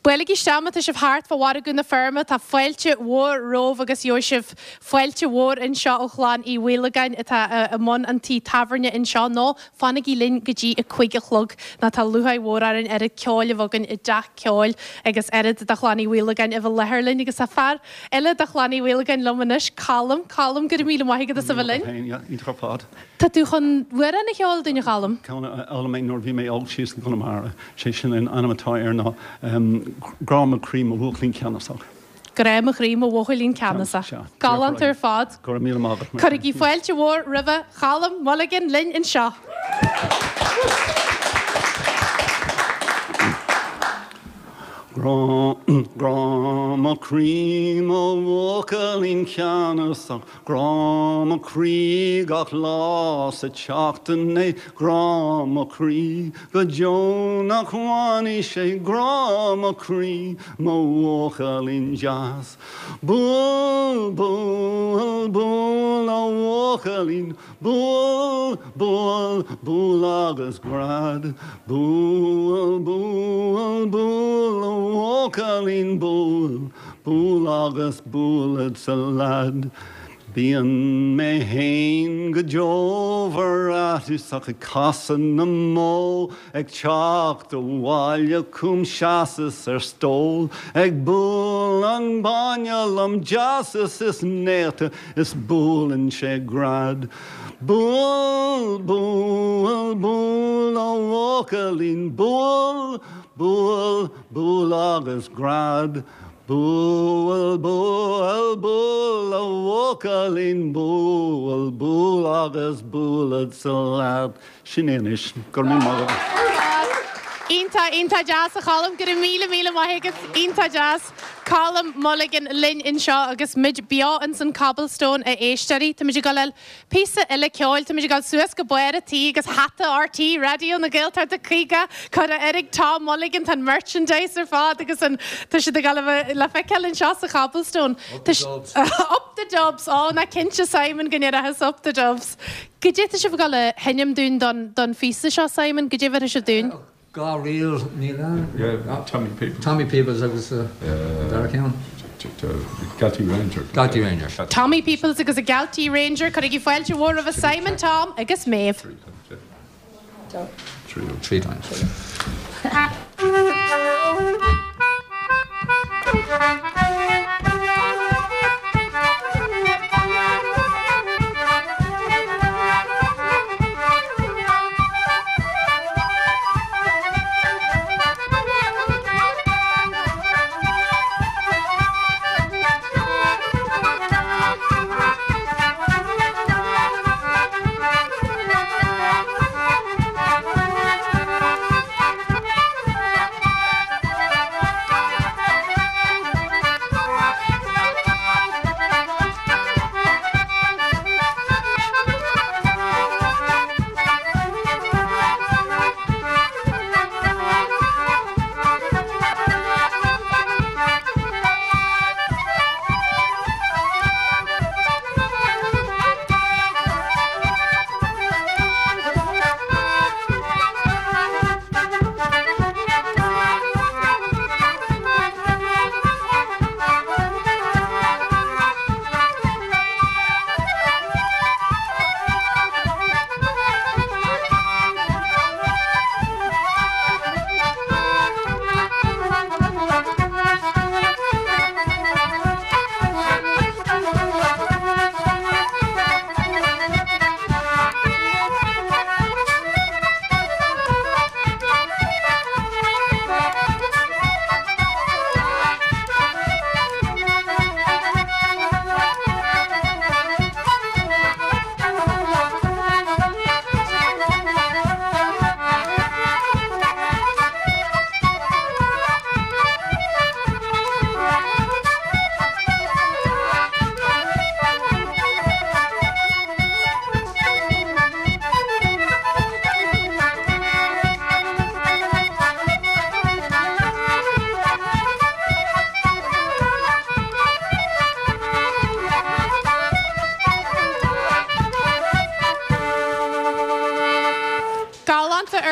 Speaker 1: Buailigí isteach má tá sibh thart fá Mhargadh na Feirme, tá fáilte mhór romhaibh agus gheobhaidh sibh fáilte mhór anseo ó chlann Uí Mhaolagáin atá i mbun an tí tábhairne anseo nó fanaigí linn go dtí a cuig a chlog nó tá lúcháir mhór orainn oiread ceoil a bheith againn i dteach ceoil agus oiread de chlann Uí Mhaolagáin a bheith i láthair linn agus tá fear eile de chlann Uí Mhaolagáin liom anois, Colm. Colm, go raibh míle maith agat as a bheith linn.
Speaker 9: Iontach ar fad.
Speaker 1: Tá tú chun amhrán a cheol dúinn, a Choilm?
Speaker 9: Ceann a d'fhoghlaim mé nuair a bhí mé óg síos i gConamara. Sé sin an ainm atá air ná Grá mo chroí mo bhuachaillín ceannasach.
Speaker 1: Grá mo chroí mo bhuachaillín ceannasach. Galánta ar fad.
Speaker 9: Go raibh míle maith agat.
Speaker 1: Cuirigí fáilte mhór roimhe Cholm Mulligan linn anseo.
Speaker 9: Grá mo chroí mo bhuachaillín ceannasach, Grá mo chroí gach lá sa tseachtain é, Grá mo chroí go deo nach bhfanfaidh sé, Grá mo chroí mo bhuachaillín deas. Buail, buail, buail a bhuachaillín, Buail, buail, buail agus gread. Buail, buail, buail a bhuachaillín buail, buail agus bualadsa leaid. Bíonn mé fhéin go deo aiteach ag casadh na mbó Ag teacht abhaile chugam sheasas ar stól Ag bualadh an bainne lom deas is néata Is buaileann sé gread. Buail, buail, buail a bhuachaillín Buail, buail, buail agus gread. Buail, buail, buail a bhuachaillín Buail, buail agus bualadsa leat. Sin é anois. Go raibh míle maith agat.
Speaker 1: Iontach, iontach deas a Choilm. Go raibh míle, míle maith agat. Iontach deas. Colm Mulligan linn anseo agus muid beo ins an Cobblestone a éisteoirí. Táimid ag dul le píosa eile ceoil. Táimid ag dul suas go barr an tí agus hata RTÉ Raidió na Gaeltachta 50 curtha air ag Tom Mulligan. Tá an merchandise ar fad agus an tá siad ag dul a bheith le feiceáil anseo sa Chobblestone.
Speaker 2: Up the Dubs.
Speaker 1: Up the Dubs! Ó, ná cinnte Simon go ndéarfas Up the Dubs. Goidé tá sibh ag dul a sheinm dúinn don don phíosa seo, Simon? Goidé a bheirfidh sibh dúinn?
Speaker 3: Dhá ríl, níl ann?
Speaker 2: Yeah, Tommy Peoples.
Speaker 3: Tommy Peoples agus an dara ceann?
Speaker 2: Galtee Ranger.
Speaker 3: Galtee Ranger.
Speaker 1: Tommy Peoples agus an Galtee Ranger. Cuirigí fáilte mhór roimhe Simon, Tom agus Méabh.
Speaker 3: Three times.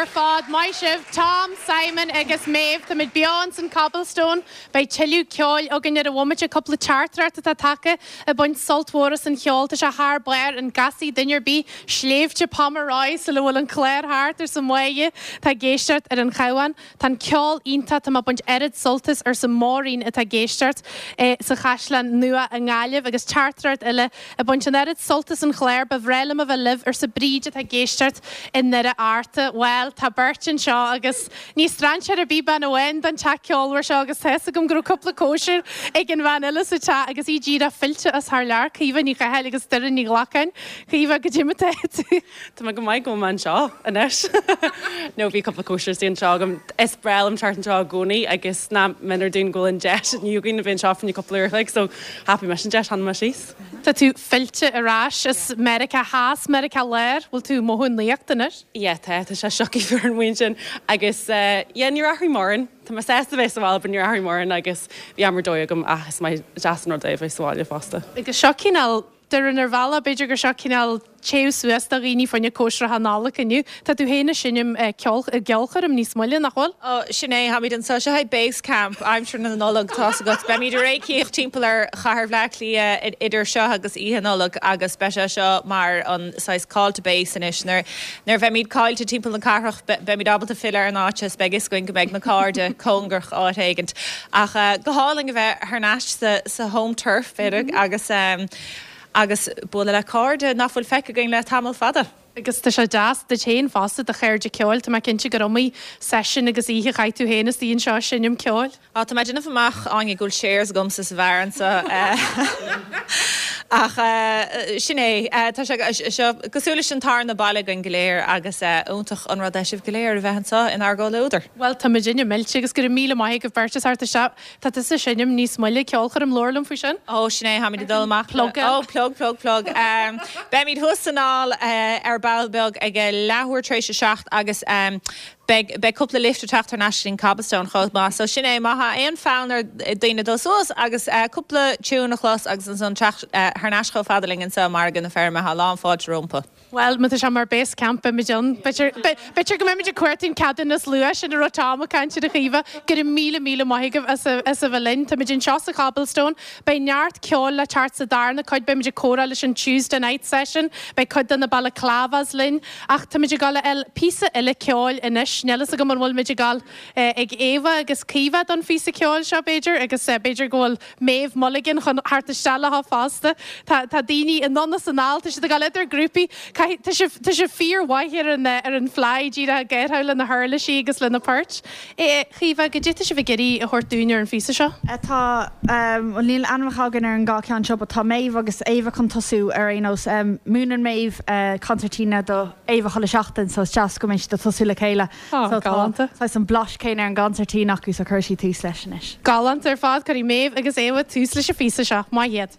Speaker 1: ar fad, maith sibh, Tom, Simon agus Méabh. Táimid beo ins an Cobblestone. Beidh tuilleadh ceoil againn ar an bhomaite, cúpla teachtaireacht atá tagtha ag baint sult mhór as an cheol. Tá sé thar barr, an gcasfaidh duine ar bith Sléibhte Pomeroy sula bhfuil an clár thart, arsa Máire atá ag éisteacht ar an Chabhán. Tá an ceol iontach, tá mé ag baint oiread sult as, arsa Máirín atá ag éisteacht sa Chaisleán Nua i nGaillimh agus teachtaireacht eile ag baint an oiread sult as an chlár, ba bhreá liom a bheith libh, arsa Bríd atá ag éisteacht i nDoire Fhearta. Bhuel, tá beirt anseo agus ní strainséir ar bith bean amháin don teach ceolmhar seo agus tá fhios agam go raibh cúpla cóisir ag an bhean eile sa teach agus í díreach fillte as thar lear, Caoimhe Ní Chathail agus Doireann Ní Ghlacáin. Caoimhe, goidé mar atá tú?
Speaker 6: Tá mé go maith go bhfuil mé anseo anois. No bhí cúpla cóisir istigh anseo agam. Is breá liom teacht anseo i gcónaí agus nach méanar dúinn go bhfuil an deis inniu againn a bheith anseo fá choinne cúpla uair a chloig so thapaigh mise an deis, tháinig mé síos.
Speaker 1: Tá tú fillte ar ais as Meiriceá Theas, Meiriceá Láir, bhfuil tú ag mothú an nuacht anois?
Speaker 6: Yeah tá, tá sé sioctha fuar amuigh ansin agus yeah níor athraigh mórán. Tá mé sásta bheith sa bhaile but níor athraigh mórán agus bhí am ar dóigh agam ach is maith deas an rud é a bheith sa bhaile fosta.
Speaker 1: Agus seo cineál Doireann ar bhealach, b'fhéidir gur seo cineál téamh suas do dhaoine fá choinne cóisreacha Nollag inniu. Tá tú féin ag seinm i gceolchoirm níos moille, nach bhfuil?
Speaker 10: Ó, sin é, táimid anseo. Seo é base camp aimsir na Nollag, tá's agat. Beimid ag réicíocht timpeall ar chathair Bhleá Cliath idir seo agus Oíche Nollag agus beidh sé seo mar an saghas call to base anois. Nuair a bheimid caillte timpeall na cathrach, beimid ábalta filleadh ar an áit is beidh fhios againn go mbeidh na cairde cóngarach áit éigint. Ach go hálainn a bheith thar n-ais sa home turf, b'fhéidir, agus agus bualadh le cairde nach bhfuil feicthe againn le tamall fada.
Speaker 1: Agus tá sé deas duit féin fosta, do chairde ceoil, tá mé cinnte gur iomaí seisiún agus oíche a chaith tú féin istigh anseo ag seinm ceoil.
Speaker 10: Á, tá mé ag déanamh amach, Áine, go bhfuil shares agamsa sa bheár anseo. Ach sin é, tá sé seo cosúil leis an tarna baile againn go léir agus iontach an rud é sibh go léir a bheith anseo inár gcomhluadar.
Speaker 1: Bhuel, tá muidinne millte agus go raibh míle maith agaibh beirt as theacht isteach. Tá tusa ag seinm níos moille, ceolchoirm, labhair liom faoi sin.
Speaker 10: Ó, sin é, táimid ag dul amach le. Plug. Ó, plug, plug, plug. Beimid thuas san hall ar ball beag ag a leathuair tar éis a 7 agus beidh, beidh cúpla lift ag teacht thar n-ais go dtí an Cobblestone chomh maith. So sin é, má tá aon fhonn ar daoine dul suas agus cúpla tune a chlos agus ansan teacht thar n-ais chomh fada linn anseo i Margadh na Feirme, tá lán fáilte rompu.
Speaker 1: Bhuel, má tá sé mar base camp, beimid ann. B'fhéidir go mbeimid ag cuartú an ceadúnas luais sin a raibh Tom ag caint air a Chaoimhe. Go raibh míle míle maith agaibh as a bheith linn. Táimid anseo sa Chobblestone. Beidh neart ceoil le teacht sa darna cuid. Beimid ag comhrá leis an Tuesday Night Session. Beidh cuid de na Balaclavas linn. Ach táimid ag dul a fháil píosa eile ceoil anois. Níl fhios agam an bhfuil muid ag dul ag Éabha agus Caoimhe don phíosa ceoil seo, b'fhéidir, agus b'fhéidir go bhfuil Méabh Mulligan chun theacht isteach leo fosta. Tá tá daoine anonn is anall, tá siad ag dul idir grúpaí. Caithfidh, tá sibh, tá sibh fíormhaith ar an ar an fly, díreach ag gáirtheáil le na huirlisí agus le na poirt. A Chaoimhe, goidé tá sibh ag iarraidh a thabhairt dúinn ar an phíosa seo?
Speaker 5: Tá, bhuel níl ainmneacha againn ar an dhá cheann seo but tá Méabh agus Éabha chun tosú ar aon nós. Múineann Méabh concertina do Éabha chuile seachtain so is deas go mbeidh siad ag tosú le chéile.
Speaker 1: Á,
Speaker 5: So tá
Speaker 1: galánta.
Speaker 5: saghas an blais céanna ar an gconsairtín acu so cuirfidh siad tús leis anois.
Speaker 1: Galánta ar fad. Cuirfidh Méabh agus Éabha tús leis an phíosa seo. Maith iad.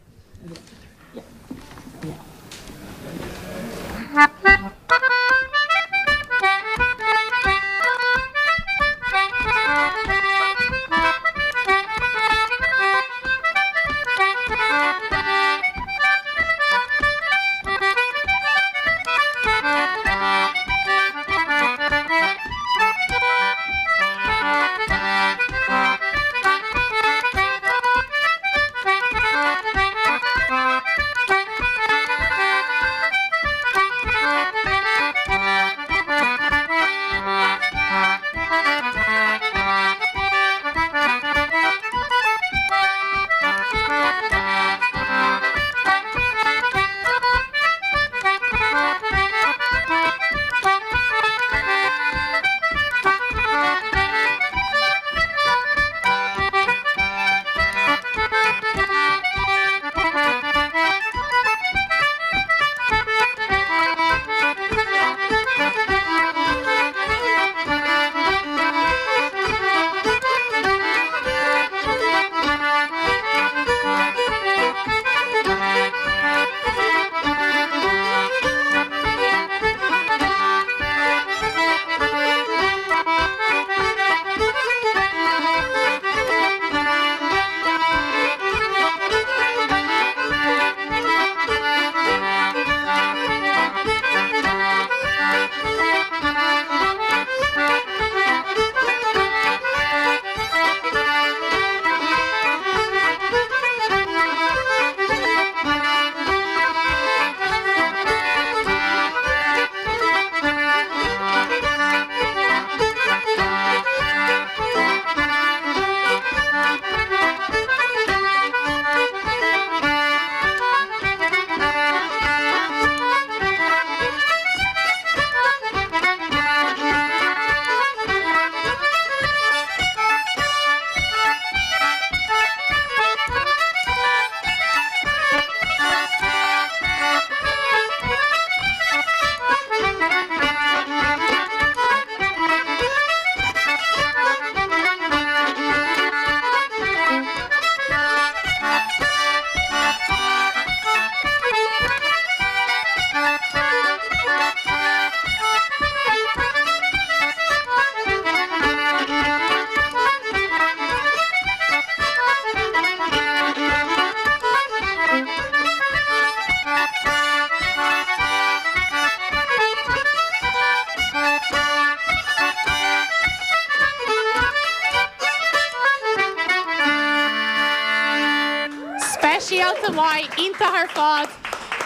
Speaker 1: Iontach maith, iontach ar fad.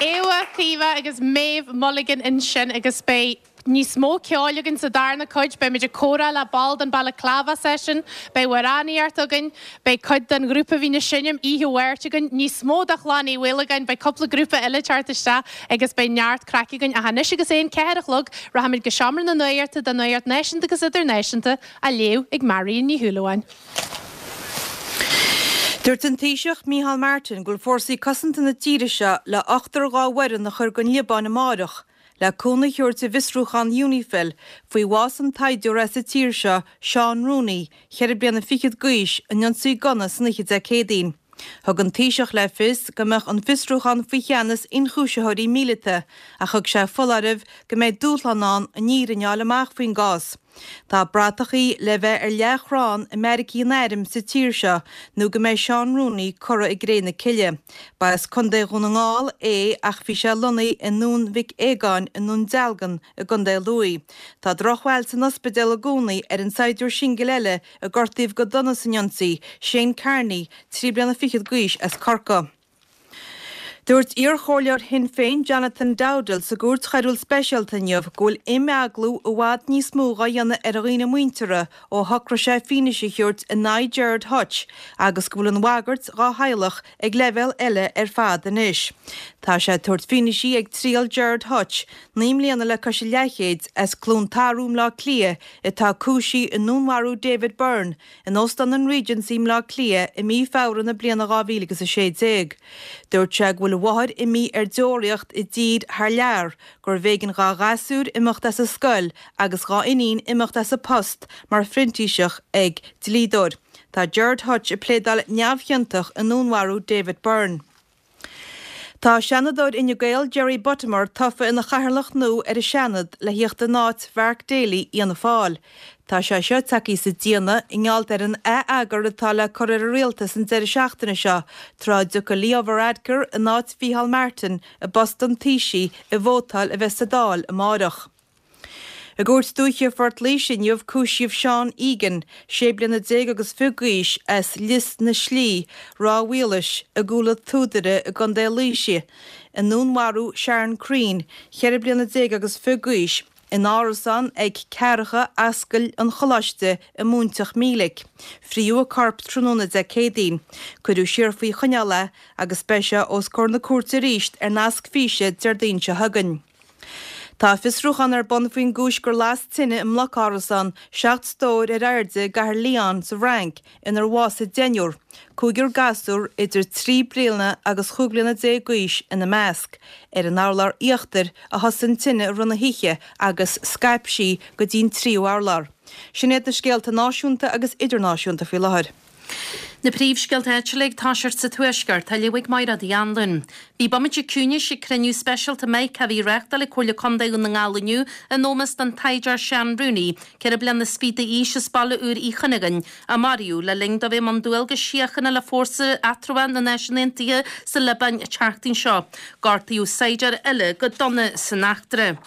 Speaker 1: Éabha, Caoimhe agus Méabh Mulligan ansin agus beidh níos mó ceoil againn sa darna cuid. Beimid ag comhrá le ball den Balaclava Session, beidh amhránaíocht againn, beidh cuid den ghrúpa a bhíonn ag seinm oíche Mháirt againn, níos mó de Chlann Uí Mhaolagáin, beidh cúpla grúpa eile ag teacht isteach agus beidh neart craic againn. Ach anois agus é an 4 a chlog, rachaimid go Seomra na Nuachta don Nuacht Náisiúnta agus Idirnáisiúnta á léamh ag Marion Ní Shúilleabháin.
Speaker 11: Dúirt an Taoiseach Micheál Martin go bhfuil fórsaí cosanta na tíre seo le ochtar dhá bhfoireann a chur gon Liobáin amáireach le cúnamh a thabhairt i bhfiosrúchán Unifil faoi bhás an tsaighdiúra as an tír seo, Seán Rooney, cheithre bliana fichead d'aois, in ionsaí gunna san oíche Dé Céadaoin. Thug an Taoiseach le fios go mbeadh an fiosrúchán faoi cheannas ionchúisitheoirí míleata ach thug sé foláireamh go mbeidh dúshlán ann an fhírinne a fháil amach faoin gcás. Tá bratachaí le bheith ar leathchrann i mbeairicí an airm sa tír seo nó go mbeidh Seán Rooney curtha i gcré na cille. Ba as Contae Dhún na nGall é ach bhí sé lonnaithe i nDún Mhic Aogáin i nDún Dealgan i gContae Lú. Tá drochbhail san ospidéal i gcónaí ar an saighdiúir singil eile a gortaíodh go dona san ionsaí, Shane Kearney, 3 bliana fichead d'aois as Corcaigh. Dúirt iarchomhairleoir Shinn Féin Jonathan Dowdall sa gCúirt Choiriúil Speisialta inniu go bhfuil imeaglú i bhfad níos mó dhá dhéanamh ar dhaoine muinteartha ó shocraigh sé fianaise a thabhairt in aghaidh Gerard Hutch agus go bhfuil an bhagairt dhá theaghlach ag leibhéal eile ar fad anois. Tá sé ag tabhairt fianaise ag triail Gerard Hutch, 9 mbliana le cois a leathchéid, as Cluain Tarbh i mBleá Cliath atá cúisithe i ndúnmharú David Byrne, in Óstán an Regency i mBleá Cliath i mí Feabhra na bliana 2016. Dúirt sé go bhfuil a mháthair imithe ar deoraíocht i dtír thar lear, gurbh éigean dhá ghasúr imeacht as an scoil agus dhá iníon imeacht as a post mar phrintíseach ag dlíodóir. Tá Gerard Hutch ag pléadáil neamhchiontach i ndúnmharú David Byrne. Tá Seanadóir Fhine Gael Jerry Buttimer tofa ina chathaoirleach nua ar an Seanad le thíocht in áit Mhark Daly Fhianna Fáil. Tá sé seo tagtha sa déanach i ngeall ar an ath-eagar atá le cur ar an rialtas an deireadh seachtaine seo tráth a dtiocfaidh Leo Varadkar in áit Mhícheál Martin i bpost an Taoisigh i vótáil a bheas sa Dáil amáireach. I gCúirt Dúiche Phort Laoise inniu cúisíodh Seán Egan, 16 bliana agus fiche d'aois, as Lios na Slí, Ráth Mhaoilís, i gCúil an tSúdaire i gContae Laoise, i ndúnmharú Sharon Crean, 14 bliana agus fiche d'aois, in árasán ag Ceathracha Ascaill an Choláiste i Móinteach Mílic. Fríodh a corp tráthnóna Dé Céadaoin. Cuireadh siar faoi choinneáil é agus beidh sé os comhair na cúirte arís ar nasc físe Déardaoin seo chugainn. Tá fiosrúchán ar bun faoin gcúis gur las tine i mbloc-árasán 7 stór ar airde i gcathair Lyon sa bhFrainc inar bhásaigh deichniúr, cúigear gasúr idir 3 bliana agus chúig bliana déag d'aois ina measc. Ar an urlár íochtair a thosaigh an tine i rith na hoíche agus scaip sí go dtí an tríú urlár. Sin iad na scéalta náisiúnta agus idirnáisiúnta faoi láthair.
Speaker 12: Na príomhscéalta áitiúla ag toiseacht sa Tuaisceart, á léamh ag Mairéad Uí Anluain. Bhí bomaite ciúnais ag cruinniú speisialta Mica a bhí á reáchtáil ag Comhairle Contae Dhún na nGall inniu in ómós don tsaighdiúir Seán Rooney, 4 bliana is fiche d'aois as Baile Úr Uí Chuinneagáin, a maraíodh le linn dó bheith i mbun dualgais síochána le Fórsa Eatramhach na Náisiún Aontaithe sa Liobáin an tseachtain seo. Gortaíodh saighdiúir eile go dona san eachtra.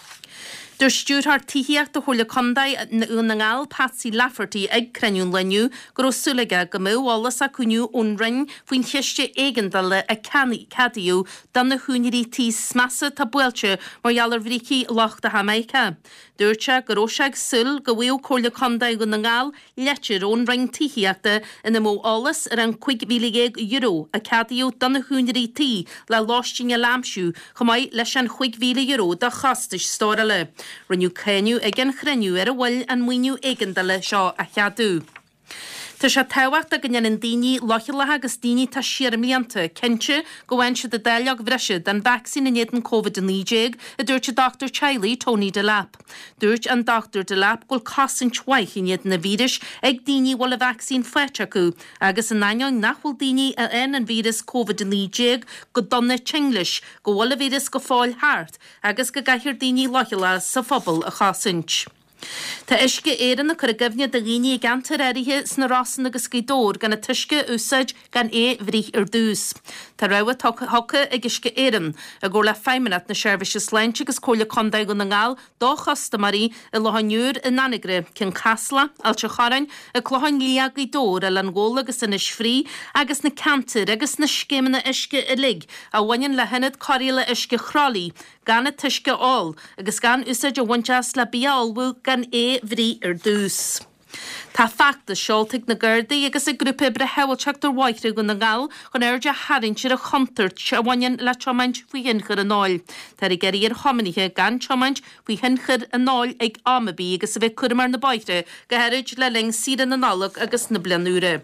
Speaker 12: Dúirt Stiúrthóir Tithíochta Chomhairle Contae Dhún na nGall, Patsy Lafferty ag cruinniú an lae inniu go raibh súil aige go mbeadh eolas acu inniu ón Roinn faoin chiste éigeandála a ceadaíodh do na húinéirí tí is measa atá buailte mar gheall ar bhrící lochtacha Mica. Dúirt sé go raibh sé ag súil go bhfaigheadh Comhairle Contae Dhún na nGall Litir ón Roinn Tithíochta ina mbeadh eolas ar an €15,000 a ceadaíodh do na húinéirí tí le lóistín eile a aimsiú, chomh maith leis an €5,000 do chostais stórála. Rinneadh cáineadh ag an chruinniú ar an mhoill an maoiniú éigeandála seo a cheadú. Tá sé tábhachtach go ndéanann daoine leochaileacha agus daoine atá siar i mblianta cinnte go bhfaigheann siad a dáileog bhreise den vacsaín in éadan Covid-19, a dúirt an dochtúir teaghlaigh Tony Delap. Dúirt an Dr Delap go bhfuil cosaint mhaith in éadan an víris ag daoine a bhfuil an vacsaín faighte acu agus in ainneoin nach bhfuil daoine a fhaigheann an víreas Covid-19 go dona tinn leis, go bhfuil an víreas go fóill thart agus go gcaithfear daoine leochaileacha sa phobal a chosaint. Tá Uisce Éireann ag cur i gcuimhne do dhaoine i gceantair áirithe sna Rosann agus Gaoth Dobhair gan an t-uisce a úsáid gan é bhruith ar dtús. Tá rabhadh tugtha ag Uisce Éireann, i gcomhar le Feidhmeannacht na Seirbhíse Sláinte agus Comhairle Contae Dhún na nGall do chustaiméirí i Loch an Iúir, in Anagaire, Cionn Caslach, Ailt an Chorráin, An Clochán Liath, Gaoth Dobhair, Oileán Ghabhla agus Inis Fraoich agus na ceantair agus na scéimeanna uisce uilig a bhaineann le hIonad Cóireála Uisce Chroithlí gan an t-uisce a ól agus gan úsáid a bhaint as le bia a ullmhú gan é bhruith ar dtús. Tá feachtas seolta ag na Gardaí agus ag Grúpa Oibre Shábháilteacht ar Bhóithre Dhún na nGall chun aird a tharraingt ar an chontúirt a bhaineann le tiomáint faoi thionchar an óil. Táthar ag iarraidh ar thiománaithe gan tiomáint faoi thionchar an óil ag am ar bith agus a bheith cúramach ar na bóithre, go háirid le linn saoire na Nollag agus na Bliana Úire.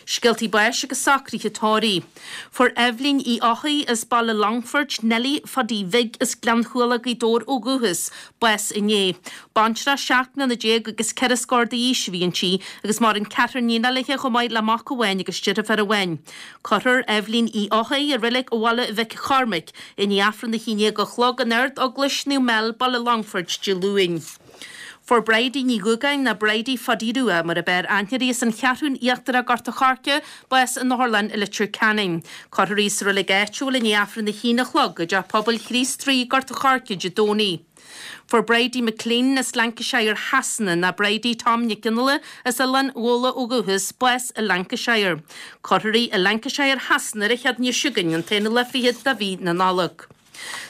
Speaker 12: Scéaltaí báis agus socruithe tórraimh. Fuair Eibhlín Uí Eochaidh as Baile Longfoirt, Neilí Phaidí Bhig as Gleann Chualann, Gaoth Dobhair ó dhúchas, bás inné. Baintreach 17 mbliana agus ceithre scór d'aois a bhí inti agus maireann ceathrar níonacha léi chomh maith le mac amháin agus deirfiúr amháin. Cuirfear Eibhlín Uí Eochaidh i Reilig Bhaile Mhic Chormaic i ndiaidh Aifreann a haon déag a chlog in Ard-Eaglais Naomh Mel, Baile Longfoirt, Dé Luain. Fuair Bridie Ní Dhúgáin, nó Bridie Phaidí Rua mar ab fhearr aithne uirthi as an Cheathrún Íochtarach, Gort a' Choirce, bás in Otharlann i Leitir Ceanainn. Cuirfear í sa reilig áitiúil i ndiaidh Aifreann a haon a chlog i dTeach Pobail Chríost Rí, Gort a' Choirce, Dé Domhnaigh. Fuair Bridie McLean as Lancashire Shasana, nó Bridie Tom Nic Fhionnghaile as Oileán Ghabhla ó dhúchas, bás i Lancashire. Cuirfear í i Lancashire Shasana ar an Chéadaoine seo chugainn, an t-aonú lá fichead de mhí na Nollag.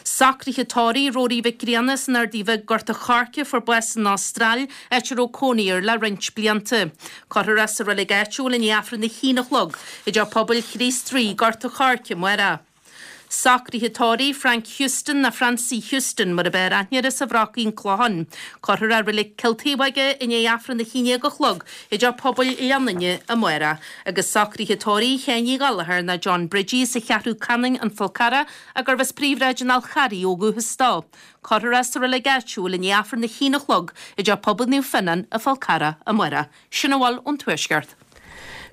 Speaker 12: Socruithe tórraimh Rory Mhic Grianna as an Ardaidh Bhig, Gort a' Choirce, fuair bás san Astráil, áit a raibh cónaí air le roinnt blianta. Cuirfear é sa reilig áitiúil i ndiaidh Aifreann a haon a chlog i dTeach Pobail Chríost Rí, Gort a' Choirce, amárach. Socruithe tórraimh Frank Houston nó Francie Houston mar ab fhearr aithne air as an Bhrocaigh, An Clochán. Cuirfear é i reilig Chill Taobhóige i ndiaidh Aifreann a haon déag a chlog i dTeach Pobail Leanainne amárach. Agus socruithe tórraimh Sheáin Uí Ghallchóir nó John Bridgie as an Cheathrú Canann, An Fál Carrach, gurbh as Príomhshráid an Fháil Charraigh ó dhúchas dó. Cuirfear é sa reilig áitiúil i ndiaidh Aifreann a haon a chlog i dTeach Pobail Naomh Fionnán, An Fál Carrach, amárach. Sin a bhfuil ón Tuaisceart.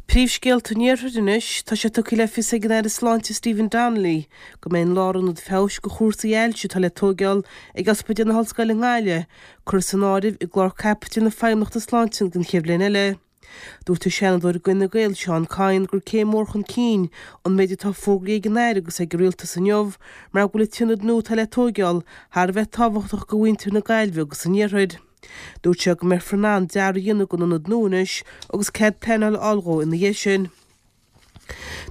Speaker 13: Príomhscéalta an Iarthair anois, tá sé tugtha le fios ag an Aire Sláinte Stephen Donnelly go mbeidh an lárionad feabhais do chúrsaí ailse atá le tóigeáil ag Ospidéal na hOllscoile i nGaillimh curtha san áireamh i gclár caipitil na Feidhmeannachta Sláinte don chéad bhliain eile. Dúirt an Seanadóir d'Fhine Gael Seán Kyne gur céim mhór chun cinn an méid atá fógraithe ag an Aire agus ag an Rialtas inniu mar go bhfuil an t-ionad nua atá le tóigeáil thar a bheith tábhachtach do mhuintir na Gaillimhe agus an Iarthair. Dúirt sé go mbeifear in ann dearadh a dhéanamh don ionad nua anois agus cead pleanála a fháil dhó ina dhiaidh sin.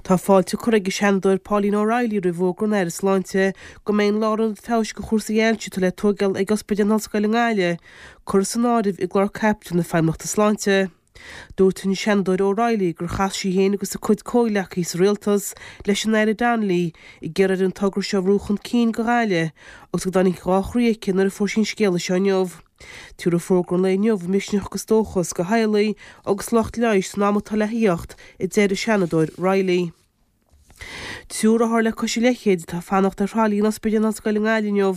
Speaker 13: Tá fáilte curtha ag an Seanadóir Pauline O'Reilly roimh fhógra an Aire Sláinte go mbeidh an lárionad feabhais do chúrsaí ailse atá le tóigeáil ag Ospidéal na hOllscoile i nGaillimh curtha san áireamh i gclár caipitil na Feidhmeannachta Sláinte. Dúirt an Seanadóir O'Reilly gur chas sí féin agus a cuid comhghleacaithe sa rialtas leis an Aire Donnelly ag iarraidh air an togra seo a bhrú chun cinn do Ghaillimh agus go dtáinig dhá chroí aici nuair a fuair sí an scéala seo inniu. Tabharfaidh fógra an lae inniu misneach agus dóchas do theaghlaigh agus lucht leighis san am atá le theacht, a deir an Seanadóir Reilly. Triúr othar le cois an leithchéid atá ag fanacht ar thralaí in Ospidéal na hOllscoile i nGaillimh inniu.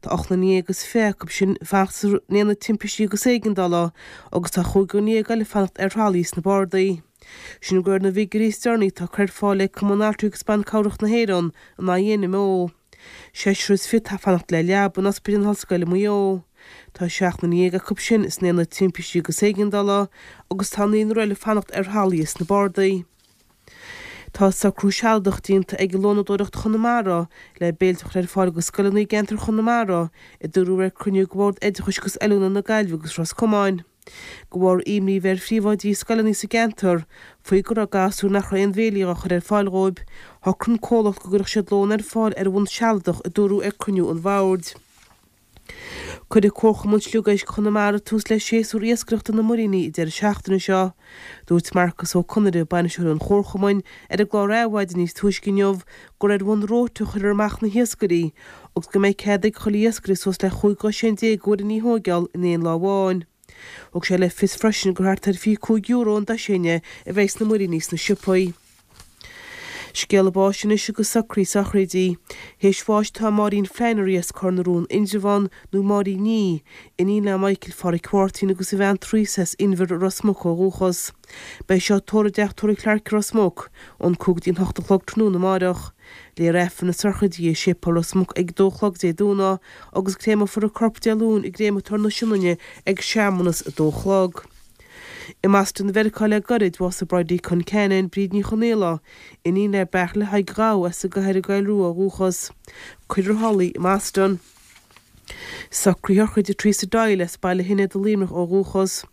Speaker 13: Tá 18 nduine agus acu sin ag fanacht san Aonad Timpistí agus Éigeandála agus tá chúigear dhéag eile ag fanacht ar thralaí sna bardaí. Sin de réir na bhfigiúirí is deireanaí atá curtha ar fáil ag Cumann Altraí agus Ban Cabhrach na hÉireann, an INMO. Seisear is fiche atá ag fanacht le leaba in Ospidéal na hOllscoile i Maigh Eo. Tá 17 nduine acu sin san Aonad Timpistí agus Éigeandála agus tá naonúr eile ag fanacht ar thralaí sna bardaí. Tá socrú sealadach déanta ag Lónadóireacht Chonamara le béilte a chur ar fáil do scoileanna i gceantar Chonamara, a dúradh ar cruinniú de Bhord Oideachais agus Oiliúna na Gaillimhe agus Ros Comáin. De bharr imní a bheith ar phríomhoidí scoileanna sa gceantar faoi go raibh gasúir nach raibh aon bhéilí á chur ar fáil dhóibh, shocraigh an comhlacht go gcuirfeadh siad lón ar fáil ar bhonn sealadach, a dúradh ar cruinniú an bhoird. Cuirfidh Comharchumann Sliogéisc Chonamara tús le séasúr iascaireachta na muiríní an deireadh seachtaine seo. Dúirt Marcus Ó Conaire, bainisteoir an Chomharchumainn, ar an gclár Adhmhaidin níos túisce inniu gur ar bhonn róta a chuirfear amach na hiascairí agus go mbeidh cead ag chuile iascaire suas le 15 dhosaen de mhuiríní a thóigeáil in aon lá amháin. Thug sé le fios freisin gur thart ar €25 an dosaen a bheidh sna muiríní sna siopaí. Scéala báis anois agus socruithe sochraide. Théis bháis tá Máirín Flannery as Cor na Rón Indreabhán nó Máirín Ní, iníon le Michael Pháraic Mháirtín agus a bhean Teresa as Inbhear i Ros Muc ó dhúchas. Beidh seo tórramh i dTeach Tórraimh Clarke i Ros Muc ón 5 go dtí an 8 a chlog tráthnóna amáireach. Léifear Aifreann na sochraide i Séipéal Ros Muc ag a dó a chlog Dé Domhnaigh agus créamfar a corp Dé Luain i gCréamatóir na Sionainne ag searmanas a dó a chlog. I mBoston Mheiriceá le gairid, bhásaigh Bridie Concannon, Bríd Ní Chonaola, iníon le Beairtle Thaidhg Ghabha as an gCathair an Choill Rua ó dhúchas. Cuirfear i Holly i mBoston. Socruithe sochraide Teresa Doyle as Baile Shinéad i Luimneach ó dhúchas.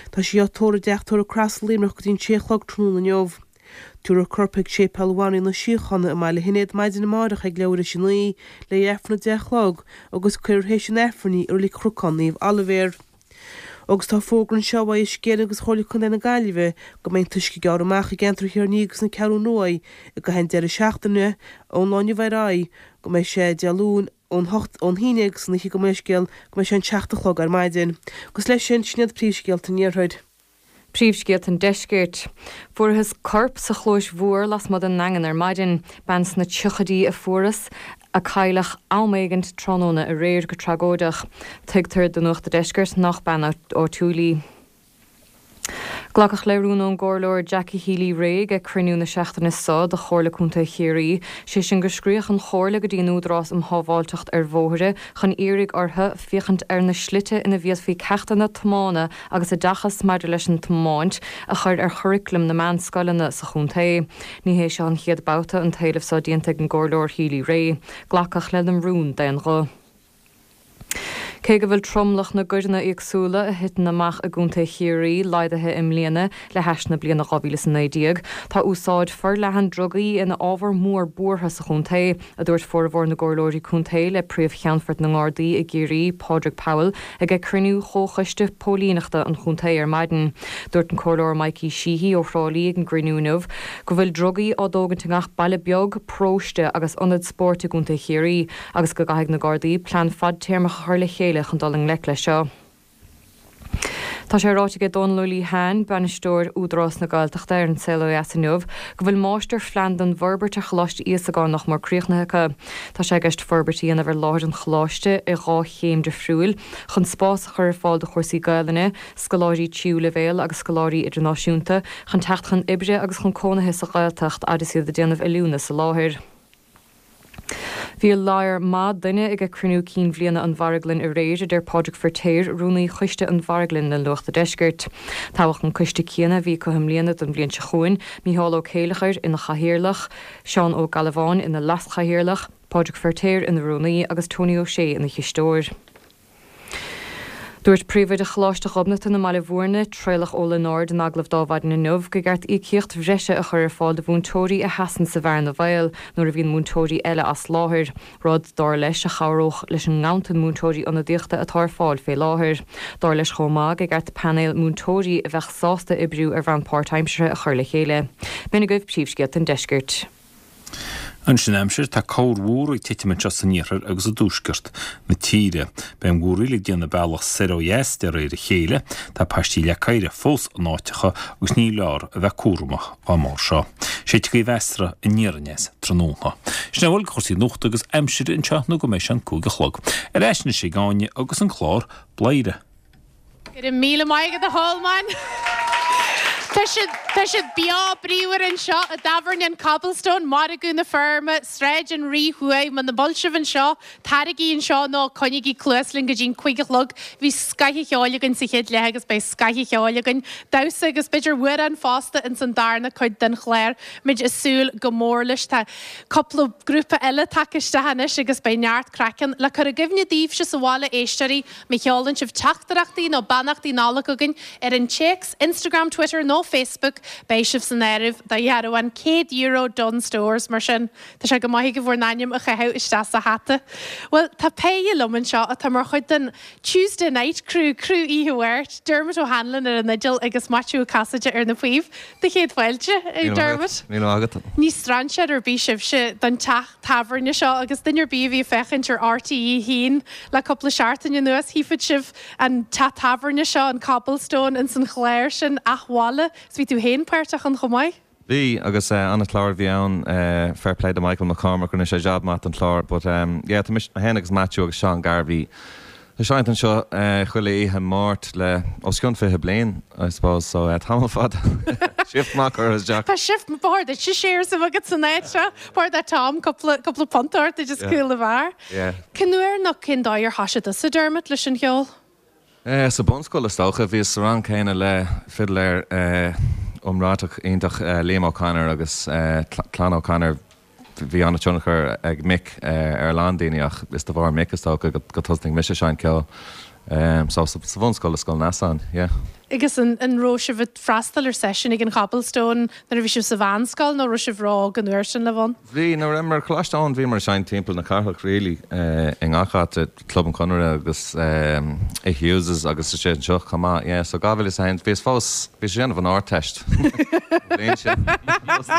Speaker 13: Tá sí á tórramh i dTeach Tórraimh Cross i Luimneach go dtí an sé a chlog tráthnóna inniu. Tabharfar a corp chuig Séipéal Bhanríon na Síochána i mBaile Shinéad maidin amárach ag leathuair théis a 9 le Aifreann a 10 a chlog agus cuirfear théis an Aifrinn í i Reilig Chnocán Naomh Oilibhéar. Agus tá fógra anseo ó Uisce Éireann agus Chomhairle Contae na Gaillimhe go mbeidh an t-uisce ag gearradh amach i gceantar Thír an Fhia agus na Ceathrún Rua i gcaitheamh an deireadh seachtaine ón lá inniu ar aghaidh go mbeidh sé Dé Luain ón hocht ón hAoine agus an oíche gabh mo leithscéal go mbeidh sé an seacht a chlog ar maidin. Agus leis sin, sin iad príomhscéalta an Iarthair.
Speaker 14: Príomhscéalta an Deiscirt. Fuarthas corp sa Chlóis Mhór lasmuigh den nDaingean ar maidin. Bean sna tríochaidí a fuarthas, a cailleadh am éigint tráthnóna aréir go tragóideach. Tuigtear do Nuacht a' Deiscirt nach bean áitiúil í. Glacadh le rún ón gComhairleoir Jackie Healy-Rae ag cruinniú na seachtaine seo de Chomhairle Contae Chiarraí, sé sin go scríobhadh an Chomhairle go dtí an Údarás um Shábháilteacht ar Bhóithre chun iarraidh orthu féachaint ar na slite ina bhféadfaí ceachtanna tiomána agus oideachas maidir leis an tiomáint a chur ar churaclam na meánscoileanna sa chontae. Ní hé seo an chéad babhta an t-éileamh seo déanta ag an gComhairleoir Healy-Rae. Glacadh lena rún d'aon ghuth. Cé go bhfuil tromlach na gcoireanna éagsúla a thiteann amach i gContae Chiarraí laghdaithe i mbliana le hais na bliana 2019, tá úsáid forleathan drugaí ina ábhar mór buartha sa chontae, a dúirt formhór na gcomhairleoirí contae le Príomh-Cheannfort na nGardaí i gCiarraí, Pádraig Powell, ag cruinniú Chomhchoiste Póilíneachta an chontae ar maidin. Dúirt an Comhairleoir Mikey Sheehy ó Thrá Lí ag an gcruinniú inniu go bhfuil drugaí á dtógaint i ngach baile beag, paróiste agus ionad spóirt i gContae Chiarraí agus go gcaithfidh na Gardaí plean fadtéarmach a chur le chéile chun dul i ngleic leis seo. Tá sé ráite aige Dónal Ó Liatháin, Bainisteoir Údarás na Gaeltachta ar An Saol Ó Dheas inniu, go bhfuil máistirphlean don bhforbairt ar Choláiste Íosagáin nach mór críochnaithe acu. Tá sé i gceist forbairt a dhéanamh ar láthair an choláiste i dhlá chéim difriúil chun spás a chur ar fáil do chúrsaí Gaelainne, scoláirí tríú leibhéal agus scoláirí idirnáisiúnta chun teacht chun oibre agus chun cónaithe sa Ghaeltacht fhad is iad ag déanamh oiliúna sa láthair. Bhí lear maith duine ag cruinniú cinn bhliana an Mharglann aréir, a deir Pádraig Firtéar, rúnaí choiste an Mharglainn le Nuacht a' Deiscirt. Toghadh an coiste céanna a bhí acu i mbliana don bhliain seo chugainn, Mícheál Ó Céileachair ina chathaoirleach, Seán Ó Gallabháin ina leaschathaoirleach, Pádraig Firtéar ina rúnaí agus Tony Ó Sé ina chisteoir. Dúirt Príomhoide Choláiste Ghobnatan i mBaile Bhúirne, Traolach Ó Lionáird in agallamh d'Adhmhaidin inniu gur cheart íocaíocht bhreise a chur ar fáil do mhúinteoirí a sheasann sa bhearna bhaoil nuair a bhíonn múinteoirí eile as láthair, rud, dar leis, a chabhródh leis an nganntan múinteoirí ionadaíochta atá ar fáil fé láthair. Dar leis chomh maith gur cheart painéal múinteoirí a bheadh sásta oibriú ar bhonn páirtaimseartha a chur le chéile. B'in agaibh príomhscéalta an deiscirt.
Speaker 15: Anois an aimsir, tá corrmhúr ag titim anseo san iarthar agus i dtuaisceart na tíre. Beidh an mhúraíl ag déanamh a bealach soir ó dheas de réir a chéile. Tá paistí leac oighre fós in áiteacha agus ní leor a bheith cúramach dá mbarr seo. Séidfidh gaoth mheasartha aniar aneas tráthnóna. Sin a bhfuil de chúrsaí nuachta agus aimsire anseo nó go mbeidh sé an 5 a chlog. Ar ais anois ag Áine agus an clár Bladhaire.
Speaker 1: Go raibh míle maith agat a Cholmáin. Tá siad, tá siad beo bríomhar anseo i dtábhairne an Cobblestone, Margadh na Feirme, Sráid an Rí Thuaidh. Muna bhfuil sibh anseo, taraigí anseo nó coinnígí cluas linn go dtí an cuig a chlog. Bhí scoth an cheoil againn sa chéad leath agus beidh scoth an cheoil againn, damhsa agus b'fhéidir amhrán fosta ins an darna cuid den chlár. Muid ag súil go mór leis. Tá cúpla grúpa eile tagtha isteach anois agus beidh neart craic ann. Le cur i gcuimhne daoibhse sa bhaile, éisteoirí, Má sheolann sibh teachtaireachtaí nó beannachtaí Nollag chugainn ar an téacs, Instagram, Twitter nó Facebook, beidh sibh san áireamh do dhearbhán €100 Dunnes Stores. Mar sin, tá sé go maith agaibh bhur n-ainm a chaitheamh isteach sa hata. Bhuel, tá péire liom anseo atá mar chuid den Tuesday Night Crew, criú Oíche Mháirt, Dermot O'Hanlon ar an fhidil agus Maitiú Ó Casaide ar na píob. Do chéad fáilte, Dermot.
Speaker 16: Míle maith agat.
Speaker 1: Ní strainséir ar bith sibhse don teach tábhairne seo agus duine ar bith a bhí ag féachaint ar RTÉ 1 le cúpla seachtain anuas, chífeadh sibh an teach tábhairne seo, an Cobblestone, ins an chlár sin, Athbhaile. Is bhí tú féin páirteach ann chomh maith.
Speaker 16: Bhí, agus an-chlár a bhí ann, fair play do Michael McCormack, rinne sé jab maith don chlár. But yeah, tá mise, mé féin agus Maitiú agus Seán Garvey. Ag seinnt anseo chuile oíche Máirt le os cionn 20 bliain, I suppose, so tamall fada. Shift maith curtha isteach.
Speaker 1: Tá shift, ba chóir duit shares a bheith agat san áit seo. Ba chóir do Tom cúpla, cúpla punt a thabhairt duit as cúl an bheáir.
Speaker 16: Yeah.
Speaker 1: Cén uair nó cén dóigh ar thoisigh tusa, Dermot, leis an cheol?
Speaker 16: Sa bunscoil is dócha. Bhíos sa rang céanna le fidléir iomráiteach iontach Liam O'Connor agus clann O'Connor. Bhí an-tionchar ag Mick ar a lán daoine ach is de bharr Mick is dócha go tosnaigh mise ag seinnt ceoil. So sa bhunscoil i Scoil Neasáin, yeah.
Speaker 1: Agus an raibh sibh ag freastal ar seisiúin ag an Chobblestone nuair a bhí sibh sa mheánscoil nó raibh sibh ró-óg an uair sin le bheith ann?
Speaker 16: Bhí, nuair a bhíomar ar Choláiste Eoin bhíomar ag seinnt timpeall na cathrach really i ngach áit, Club an Chonartha agus i Hughes's agus istigh anseo chomh maith, yeah. So 2001, bhíos fós, bhíos ag déanamh an Ardteist an bhliain sin,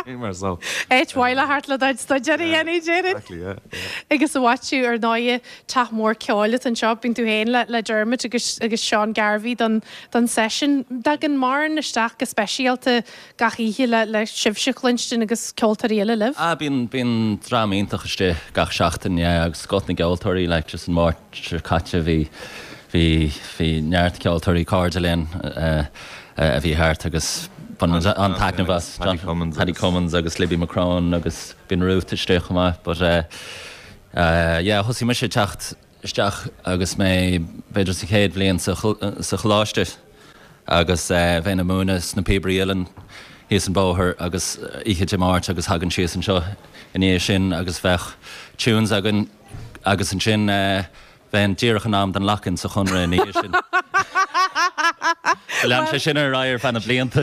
Speaker 16: bhíomar so.
Speaker 1: Áit mhaith le theacht le do chuid staidéir a dhéanamh, déarfainn.
Speaker 16: Exactly, yeah, yeah.
Speaker 1: Agus a Mhaitiú, ar ndóighe, teach mór ceoil atá anseo, bíonn tú féin le le Dermot agus agus Seán Garvey don don seisiún. Tagann mórán isteach go speisialta gach oíche le le sibhse a chluinstin agus ceoltóirí eile libh.
Speaker 17: Ah bíonn bíonn dream iontach istigh gach seachtain yeah agus scoth na gceoltóirí like just an Máirt seo caite bhí bhí bhí neart ceoltóirí cairde linn eh a bhí thart agus bhain muid an-taitneamh as
Speaker 16: Paddy Cummins
Speaker 17: Paddy Cummins agus Libby McCrone agus bíonn Ruth istigh chomh maith but eh eh yeah thosaigh mise ag teacht isteach agus mé b'fhéidir sa chéad bhliain sa choláiste agus bheinn ag múineadh sna Píobairí Uilleann thíos an bóthar agus oíche Dé Máirt agus thagainn síos anseo i ndiaidh sin agus bheadh tunes againn agus ansin bheinn díreach in am don lock-in sa Chonradh ina dhiaidh sin. Lean sé sin ar aghaidh ar feadh na blianta.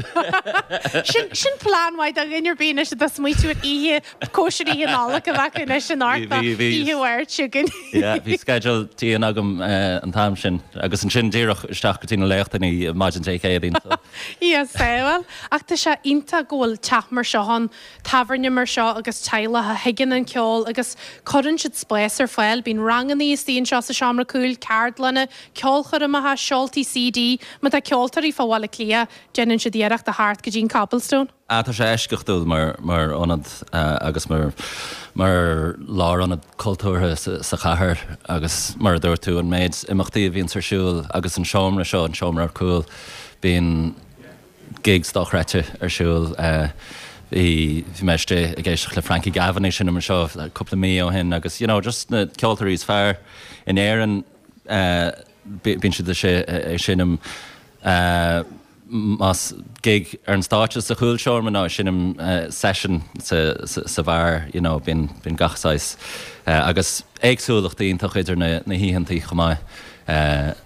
Speaker 1: Sin plean maith do dhuine ar bith anois atá ag smaoitiú ar oíche Cóisir Oíche Nollag a bheadh anois in Ard ná Oíche Mháirt chugainn.
Speaker 17: Yeah, bhí sceideal dian agam an t-am sin agus ansin díreach isteach go dtí na léachtanna maidin Dé Céadaoin so.
Speaker 1: Yes, bhuel, ach tá sé iontach go bhfuil teach mar seo ann, tábhairne mar seo agus teaghlach a thuigeann an ceol agus cuireann siad spás ar fáil. Bíonn ranganna istigh anseo sa seomra cúil, ceardlanna, ceolchoirmeacha, seoltaí CD. Má tá ceoltóirí fá Bhaile Átha Cliath, déanann siad iarracht a theacht go dtí an Cobblestone.
Speaker 17: Ah, tá sé eisceachtúil mar mar ionad agus mar mar lárionad cultúrtha sa chathair agus mar a dúirt tú, an méid imeachtaí a bhíonns ar siúl agus an seomra seo, an seomra ar cúl, bíonn gigs dochreidte ar siúl. Bhí bhí mé istigh ag éisteacht le Frankie Gavin ag seinm anseo cúpla mí ó shin agus you know just na ceoltóirí is fearr in Éirinn bíonn siad istigh ag seinm. Más gig ar an stáitse sa chúlseomra nó ag seinm session sa bheár, you know, bíonn bíonn gach saghas agus éagsúlacht iontach idir na na hoícheantaí chomh maith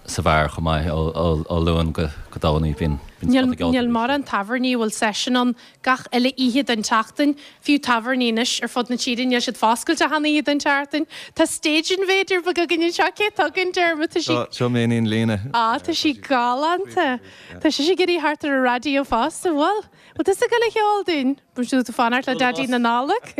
Speaker 17: sa bheár chomh maith ó ó Luan go go Domhnaigh bíonn bíonn
Speaker 1: Níl níl mórán tábhairní a bhfuil session ann gach uile oíche den tseachtain. Fiú tábhairní anois ar fud na tíre níl siad foscailte achan oíche den tseachtain. Tá stage invader beag againn anseo. Cé atá againn, Dermot? Tá sí.
Speaker 16: Seo m'iníon Lína.
Speaker 1: Á, tá sí galánta. Tá sise ag iarraidh theacht ar an raidió fosta. Bhfuil? Bhfuil tusa ag dul a cheol dúinn? Bhfuil tú ag fanacht le Daidí na Nollag?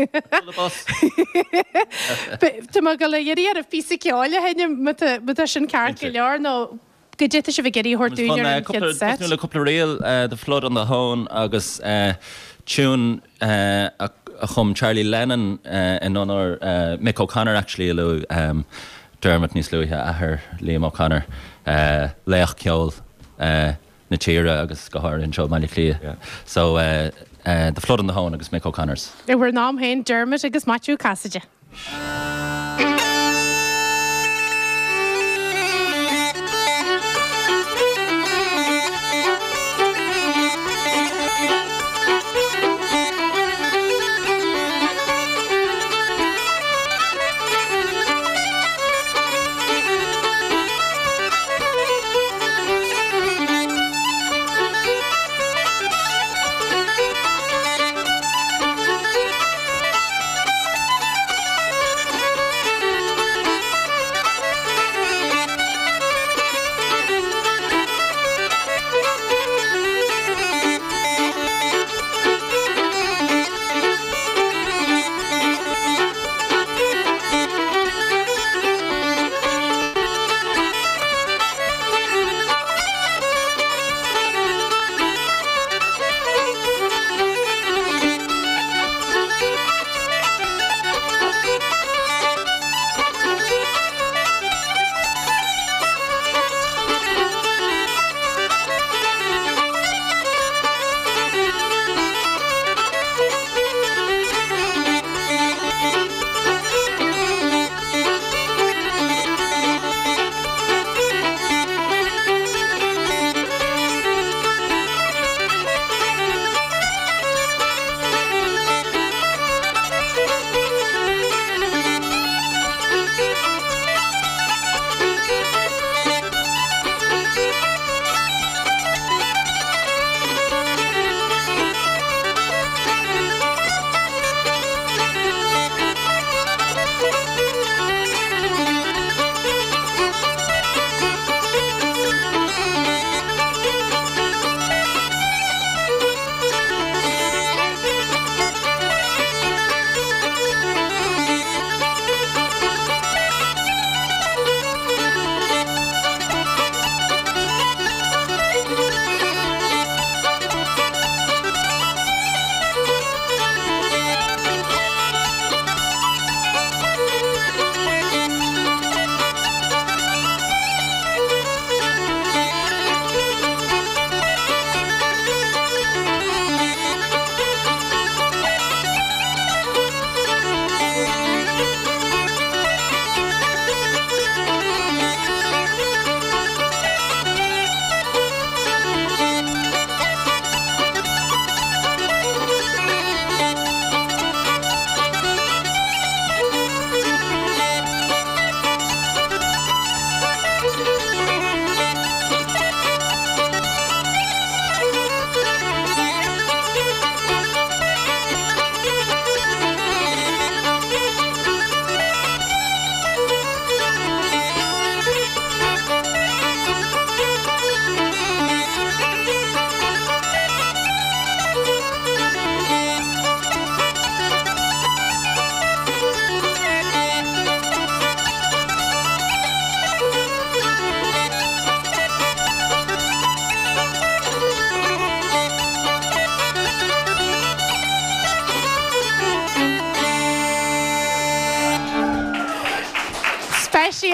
Speaker 1: Tá mé ag dul a iarraidh oraibh píosa ceoil a sheinm má tá sin ceart go leor nó Goidé tá sibh ag iarraidh a thabhairt dúinn ar an chéad set.
Speaker 17: Tosnú le cúpla ríl, The Flood on the Hoan agus tune a chum Charlie Lennon in onóir Mick O'Connor actually a luaigh Dermot níos luaithe, athair Liam O'Connor, laoch ceoil na tíre agus go háirithe anseo i mBaile Átha Cliath. So The Flood on the Hoan agus Mick O'Connors.
Speaker 1: I bhur n-am féin, Dermot agus Maitiú Cassidy.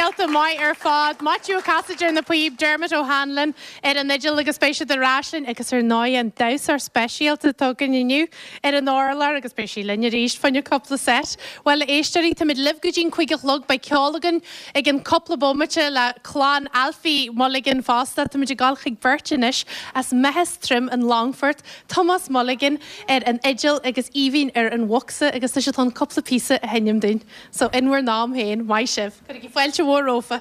Speaker 1: Speisialta maith ar fad. Maitiú Ó Casaide ar na píob, Dermot O'Hanlon ar an fhidil agus beidh siad ar ais linn agus ar ndóigh an damhsóir speisialta atá againn inniu ar an urlár agus beidh sí linn arís fá choinne cúpla set. Bhuel a éisteoirí, táimid libh go dtí'n 5 a chlog, beidh ceol againn i gcionn cúpla bomaite le clann Alfie Mulligan fosta. Táimid ag dul chuig beirt anois as Meathas Troim an Longfort, Tomás Mulligan ar an fhidil agus Aoibhinn ar an bhocsa agus tá siad chun cúpla píosa a sheinm dúinn. So in bhur n-am féin, maith sibh. Cuirigí fáilte mhór rompu.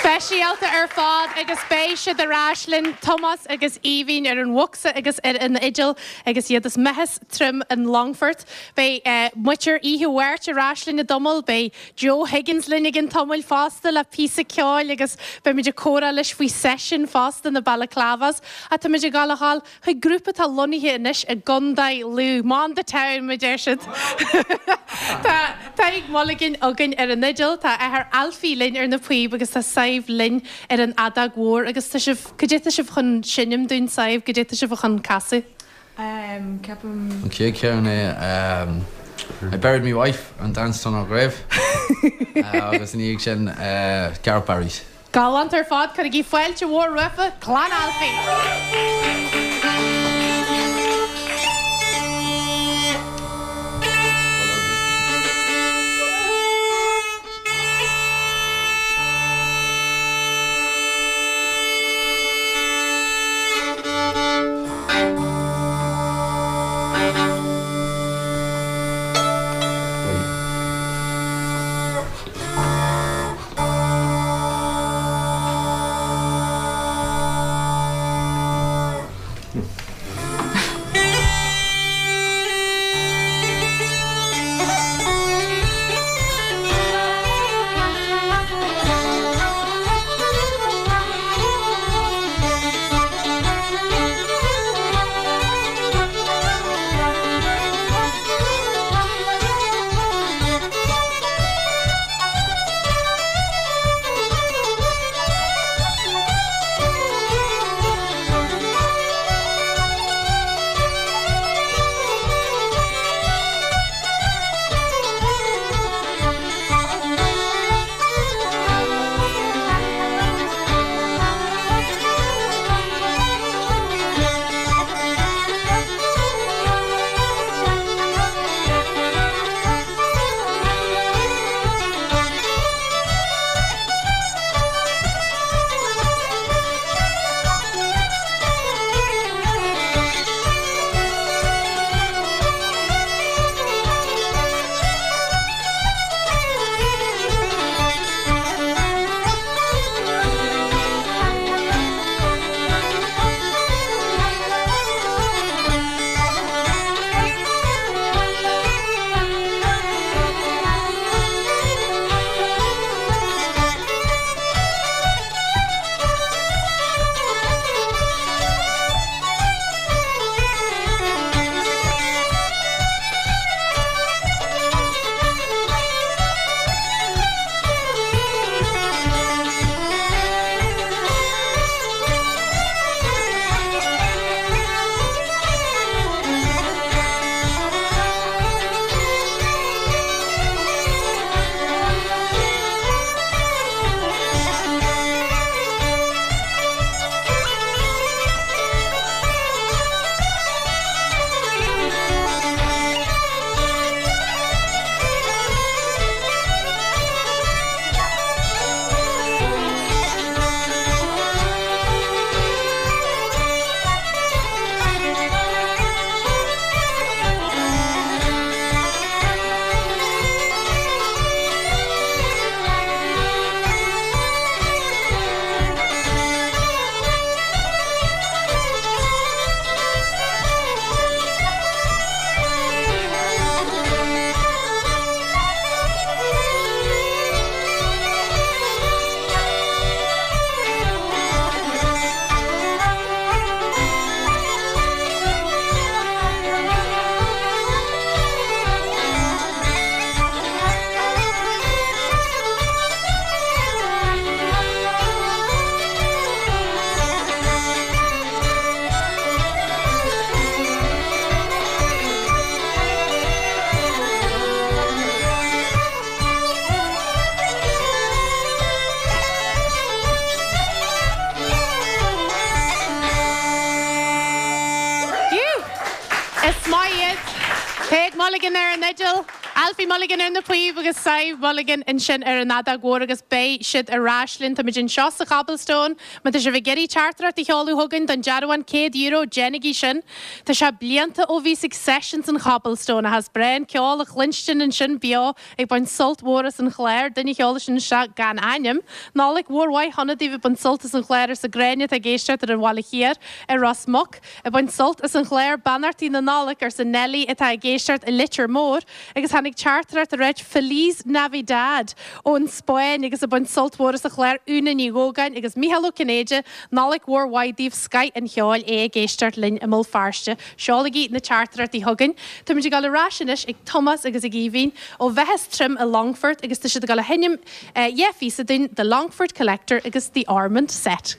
Speaker 1: Speisialta ar fad agus beidh siad ar ais linn, Tomás agus Aoibhinn ar an bhocsa agus ar an fhidil agus iad as Meathas Troim an Longfort. Beidh muintir Oíche Mháirt ar ais linn i dtamall, beidh Joe Higgins linn i gcionn tamaill fosta le píosa ceoil agus beimid ag comhrá leis faoi seisiún fosta na Balaclavas. Ach táimid ag dul a dhul chuig grúpa atá lonnaithe anois i gContae Lú, Man the Town mar a deir siad. Tá Tadhg Mulligan againn ar an fhidil, tá a athair Alfie linn ar na píob agus tá Sadhbh linn ar an fheadóg mhór agus tá sibh, cad é tá sibh chun seinm dúinn Sadhbh, cad é tá sibh chun casadh?
Speaker 5: Ceapaim.
Speaker 18: An chéad cheann é I Buried Me Wife and Danced on Her Grave agus ina dhiaidh sin Garret Barry's.
Speaker 1: Galánta ar fad, cuirigí fáilte mhór roimhe, Clann Alfie! Mulligan ar an fhidil, Alfie Mulligan ar na píob agus Sadhbh Mulligan ansin ar an fheadóg mhór agus beidh siad ar ais linn. Táimid anseo sa Chobblestone. Má tá sibh ag iarraidh teachtaireacht a sheoladh chugainn don dearbhán €100, déanaigí sin. Tá sé blianta ó bhíos ag sessions an Chobblestone ach is breá an ceol a chluinstin ansin beo ag baint sult mhór as an chlár. Duine a sheol sin isteach gan ainm. Nollaig mhór mhaith shona daoibh ag baint sult as an chlár arsa Gráinne atá ag éisteacht ar an Bhaile Thiar i Ros Muc. Ag baint sult as an chlár Beannachtaí na Nollag arsa Nellie atá ag éisteacht i Leitir Móir agus tháinig teachtaireacht ag ráit Feliz Navidad ón Spáinn agus ag baint sult mhór as an chlár Úna Ní Dhógáin agus Mícheál Ó Cinnéide Nollaig mhór mhaith daoibh scoith an cheoil é ag éisteacht linn i mBéal Feirste. Seolaigí na teachtaireachtaí chugainn. Táimid ag dul ar ais anois ag Tomás agus ag Aoibhinn ó Mheathas Trim i Longfort agus tá siad ag dul a sheinm dheich phíosa dúinn, The Longford Collector agus The Ormond Set.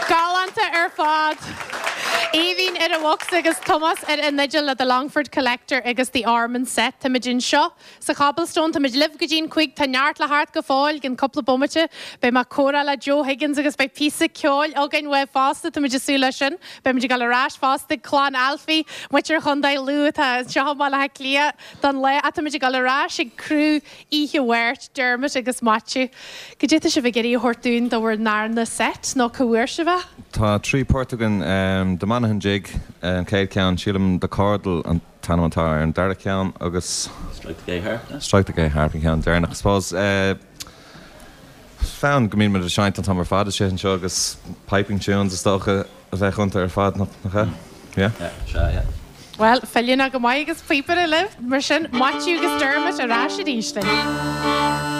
Speaker 1: Galánta ar fad! Aoibhinn ar an bhocsa agus Tomás ar an fhidil le The Longford Collector agus The Ormond Set. Táimid anseo sa Chobblestone, táimid libh go dtí'n 5, tá neart le theacht go fóill, i gcionn cúpla bomaite beidh mé ag comhrá le Joe Higgins agus beidh píosa ceoil againn uaidh fosta, táimid ag súil leis sin. Beimid ag dul ar ais fosta ag clann Alfie, muintir Chontae Lú atá anseo i mBaile Átha Cliath don lá ach táimid ag dul ar ais ag criú Oíche Mháirt, Dermot agus Maitiú. Cad é tá sibh ag iarraidh a thabhairt dúinn do bhur ndarna seit nó cá bhfuair sibh é?
Speaker 16: Tá 3 port againn, The Monaghan Jig an chéad cheann, sílim The Cordal an t-ainm atá ar an dara ceann agus.
Speaker 17: Strike the Gay Harp, yeah?
Speaker 16: Strike the Gay Harp an ceann deireanach I suppose. Fonn go mbíonn muid ag seinnt an t-am ar fad istigh anseo agus piping tunes is dócha a bheadh iontu ar fad, nach ea? Yeah?
Speaker 17: Yeah, sea, yeah.
Speaker 1: Bhuel, feiliúnach go maith agus píopaire libh, mar sin, Maitiú agus Dermot ar ais arís linn.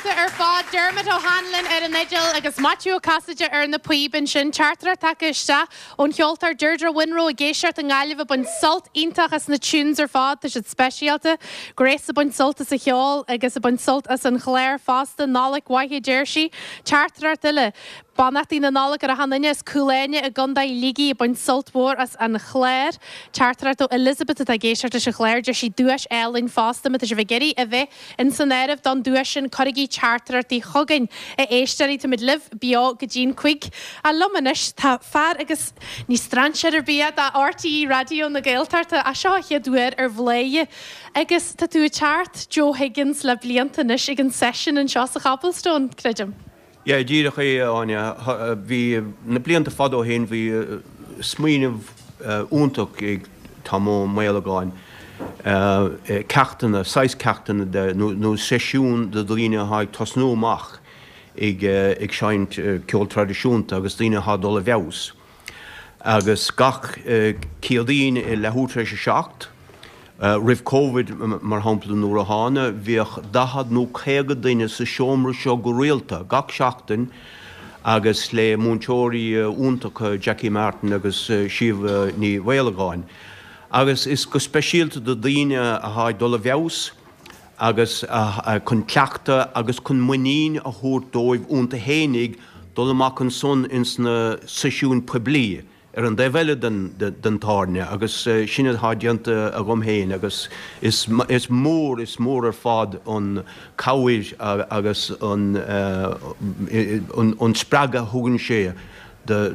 Speaker 1: galánta ar fad. Dermot O'Hanlon ar an fhidil agus Maitiú Ó Casaide ar na píob ansin. Teachtaireacht tagtha isteach ón cheoltóir Deirdre Winrow ag éisteacht i nGaillimh ag baint sult iontach as na tunes ar fad. Tá siad speisialta. Grace ag baint sult as an cheol agus ag baint sult as an chlár fosta. Nollaig mhaith a deir sí. Teachtaireacht eile. Beannachtaí na Nollag ar achan duine as Cúil Áine i gContae Shligigh ag baint sult mhór as an chlár. Teachtaireacht ó Elizabeth atá ag éisteacht leis an chlár. Deir sí duais álainn fosta. Má tá sibh ag iarraidh a bheith in san áireamh don duais sin cuirigí teachtaireachtaí chugainn. A éisteoirí, táimid libh beo go dtí'n cuig. Ach liom anois tá fear agus ní strainséir ar bith é do RTÉ Raidió na Gaeltachta ach seo a chéad uair ar Bhladhaire agus tá tú ag teacht Joe Higgins le blianta anois ag an seisiún anseo sa Chobblestone, creidim.
Speaker 19: Yeah, díreach é, a Áine. Bhí, na blianta fada ó shin, bhí smaoineamh iontach ag Tom Ó Maolagáin, ceachtanna, saghas ceachtanna de, nó seisiún do dhaoine atá ag tosnú amach ag ag seinnt ceol traidisiúnta agus daoine atá ag dul i bhfeabhas. Agus gach Céadaoin i leathuair tar éis a 7, roimh Covid mar shampla nuair a thána, bhíodh 40 nó 50 duine sa seomra seo go rialta gach seachtain agus le múinteoirí iontacha Jackie Martin agus Síomha Ní Mhaolagáin. Agus is go speisialta do daoine atá ag dul i bhfeabhas, agus chun cleachtadh agus chun muinín a thabhairt dóibh iontu fhéinig dul amach ansan ins na seisiúin poiblí ar an dtaobh eile den tábhairne agus sin atá déanta agam féin agus is mór, is mór ar fad an cabhair agus an spreagadh a thugann sé do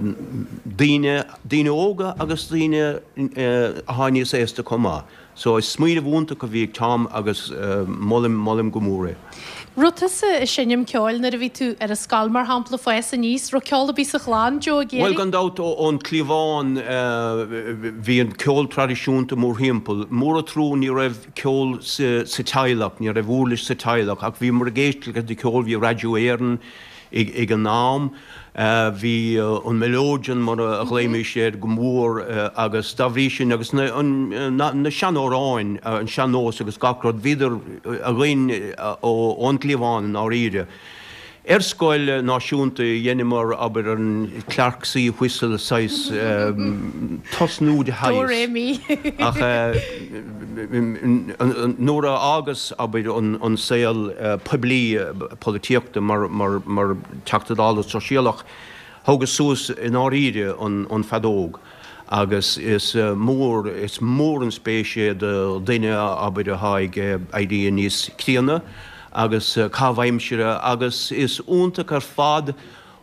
Speaker 19: daoine, daoine óga agus daoine atá níos aosta chomh maith. So is smaoineamh iontach a bhí ag Tom agus molaim, molaim go mór é.
Speaker 1: Raibh tusa ag seinm ceoil nuair a bhí tú ar an scoil mar shampla, fás aníos, raibh ceol ar bith sa chlann, Joe ag
Speaker 19: Bhuel gan dabht ón chliabhán bhí an ceol traidisiúnta mórthimpeall. Mór an trua ní raibh ceol sa teaghlach, ní raibh uirlis sa teaghlach ach bhíomar ag éisteacht leis an cheol, bhí Raidió Éireann, Ag an am, bhí an melodeon, mar a ghlaoimis air, go mór agus dá bhrí sin, agus na seanamhráin, an sean-nós agus gach rud, bhíodar againn ón gcliabhán i ndáiríre. Ar scoil náisiúnta dheineamar, abair, an Clarke C whistle, saghas tosnú de shaghas.
Speaker 1: Do ré mi.
Speaker 19: Ach nuair a fhágas, abair, an saol poiblí, polaitíochta mar Teachta Dála Sóisialach, thógas suas i ndáiríre an feadóg agus is mór, is mór an spéis é do dhuine, abair, atá ag éirí níos críonna agus caitheamh aimsire agus is iontach ar fad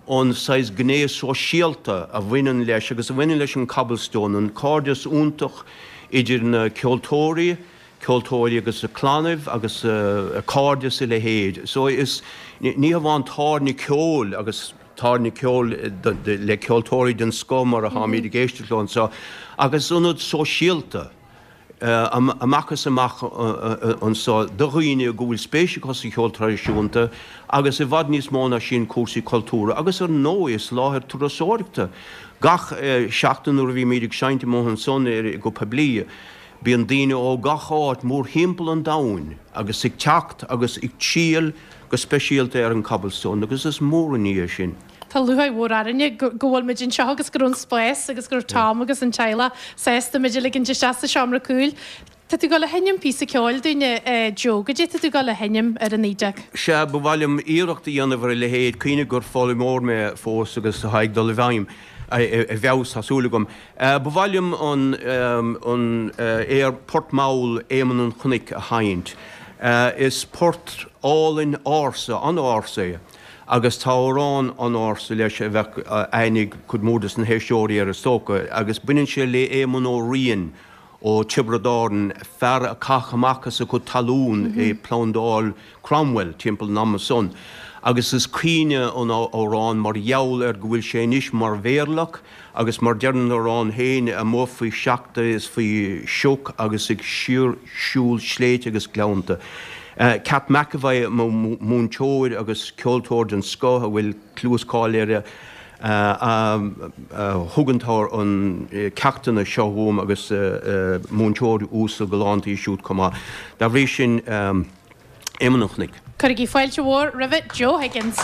Speaker 19: an saghas gné sóisialta a bhaineann leis agus a bhaineann leis an Cobblestone, an cairdeas iontach idir na ceoltóirí, ceoltóirí agus a clannaibh agus a cairde is a leithéid. So is, ní hamháin tábhairne ceoil agus tábhairne ceoil le ceoltóirí den scoth mar atáimid ag éisteacht leo anseo ach is ionad sóisialta amach is amach anseo do dhaoine go bhfuil spéis acu sa cheol traidisiúnta agus i bhfad níos mó ná sin cúrsaí cultúrtha agus ar ndóigh is láthair turasóireachta gach seachtain nuair a bhímid ag seinnt amuigh ansan go poiblí. Bíonn daoine ó gach áit mórthimpeall an domhain agus ag teacht agus ag triall go speisialta ar an Cobblestone agus is mór an ní é sin.
Speaker 1: Tá lúcháir mhór orainne go bhfuil muid anseo agus go raibh an spás agus go raibh Tom agus an teaghlach sásta muid a ligint isteach sa seomra cúil. Tá tú ag dul a sheinm píosa ceoil dúinne, Joe. Goidé tá tú ag dul a sheinm ar an fhidil?
Speaker 19: Sea, ba mhaith liom iarracht a dhéanamh ar a leithéid. Cuimhnigh gur foghlaimeoir mé fós agus atá ag dul i bhfeidhm, i bhfeabhas, tá súil agam. Ba mhaith liom an aer Port Mall Éamonn an Chnoic a sheinnt. Is port álainn ársa, an-ársa é agus tá amhrán an-ársa leis a bheadh aithne ag cuid mhór de na héisteoirí air is dócha agus baineann sé le Éamonn Ó Riain ó Tiobraid Árann, fear a caitheadh amach as a chuid talún i bPlandáil Cromwell timpeall an ama san agus is caoineadh an amhrán mar gheall ar go bhfuil sé anois mar mhéirleach Agus mar deir an amhrán féin, amuigh faoi sneachta is faoi shioc agus ag síor-shiúl sléibhte agus gleannta. Cat McEvoy, mo mhúinteoir agus ceoltóir den scoth a bhfuil clú is cáil air, a thug an ceachtanna seo dhom agus múinteoir uasal galánta í siúd chomh maith. Dá bhrí sin, Éamonn an Chnoic.
Speaker 1: Cuirigí fáilte mhór roimhe Joe Higgins.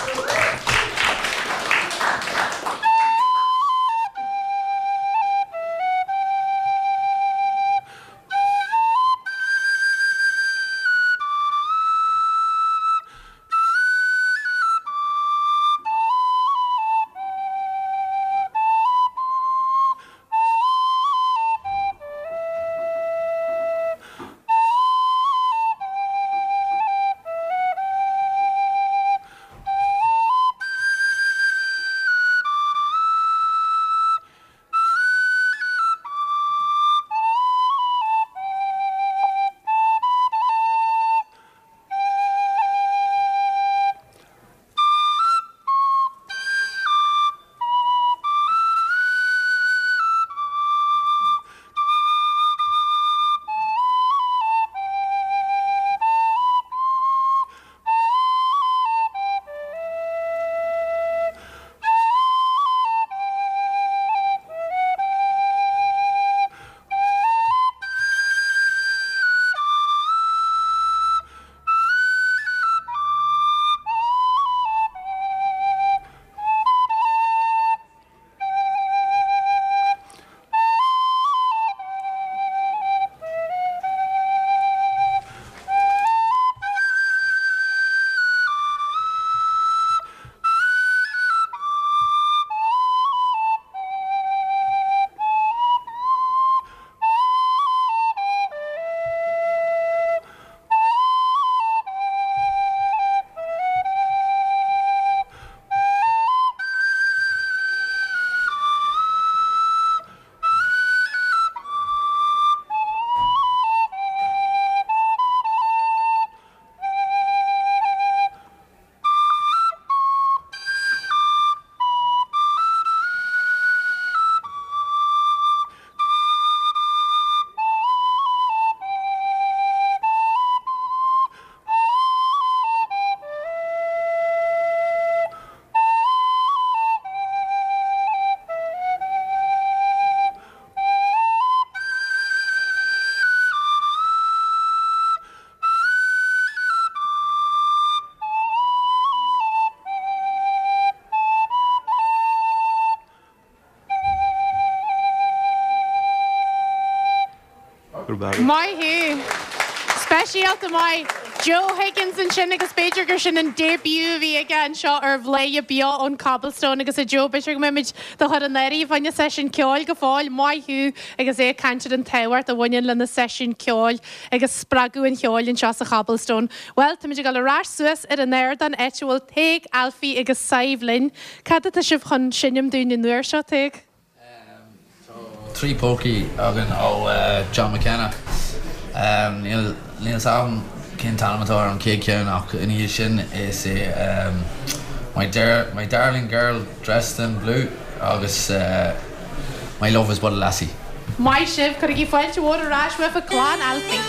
Speaker 1: Maith thú. Speisialta maith. Joe Higgins ansin agus b'fhéidir gur sin an debut a bhí aige anseo ar Bhladhaire Beo ón Cobblestone agus a Joe b'fhéidir go mbeimid do chur in áirithe fá choinne seisiún ceoil go fóill. Maith thú agus é ag caint ar an tábhacht a bhaineann le na seisiúin ceoil agus spreagadh an cheoil anseo sa Chobblestone. Bhuel, táimid ag dul ar ais suas ar an ardán áit a bhfuil Tadhg, Ailfí agus Sadhbh linn. Cad atá sibh chun seinm dúinn an uair seo, Tadhg?
Speaker 18: Tá 3 polcaí againn ó John McKenna. Níl 'fhios a'm cén t-ainm atá ar an chéad cheann ach ina dhiaidh sin is é My My Darling Girl Dressed in Blue agus My Love is But a Lassie.
Speaker 1: Maith sibh, cuirigí fáilte mhór ar ais roimh clann Ailfí.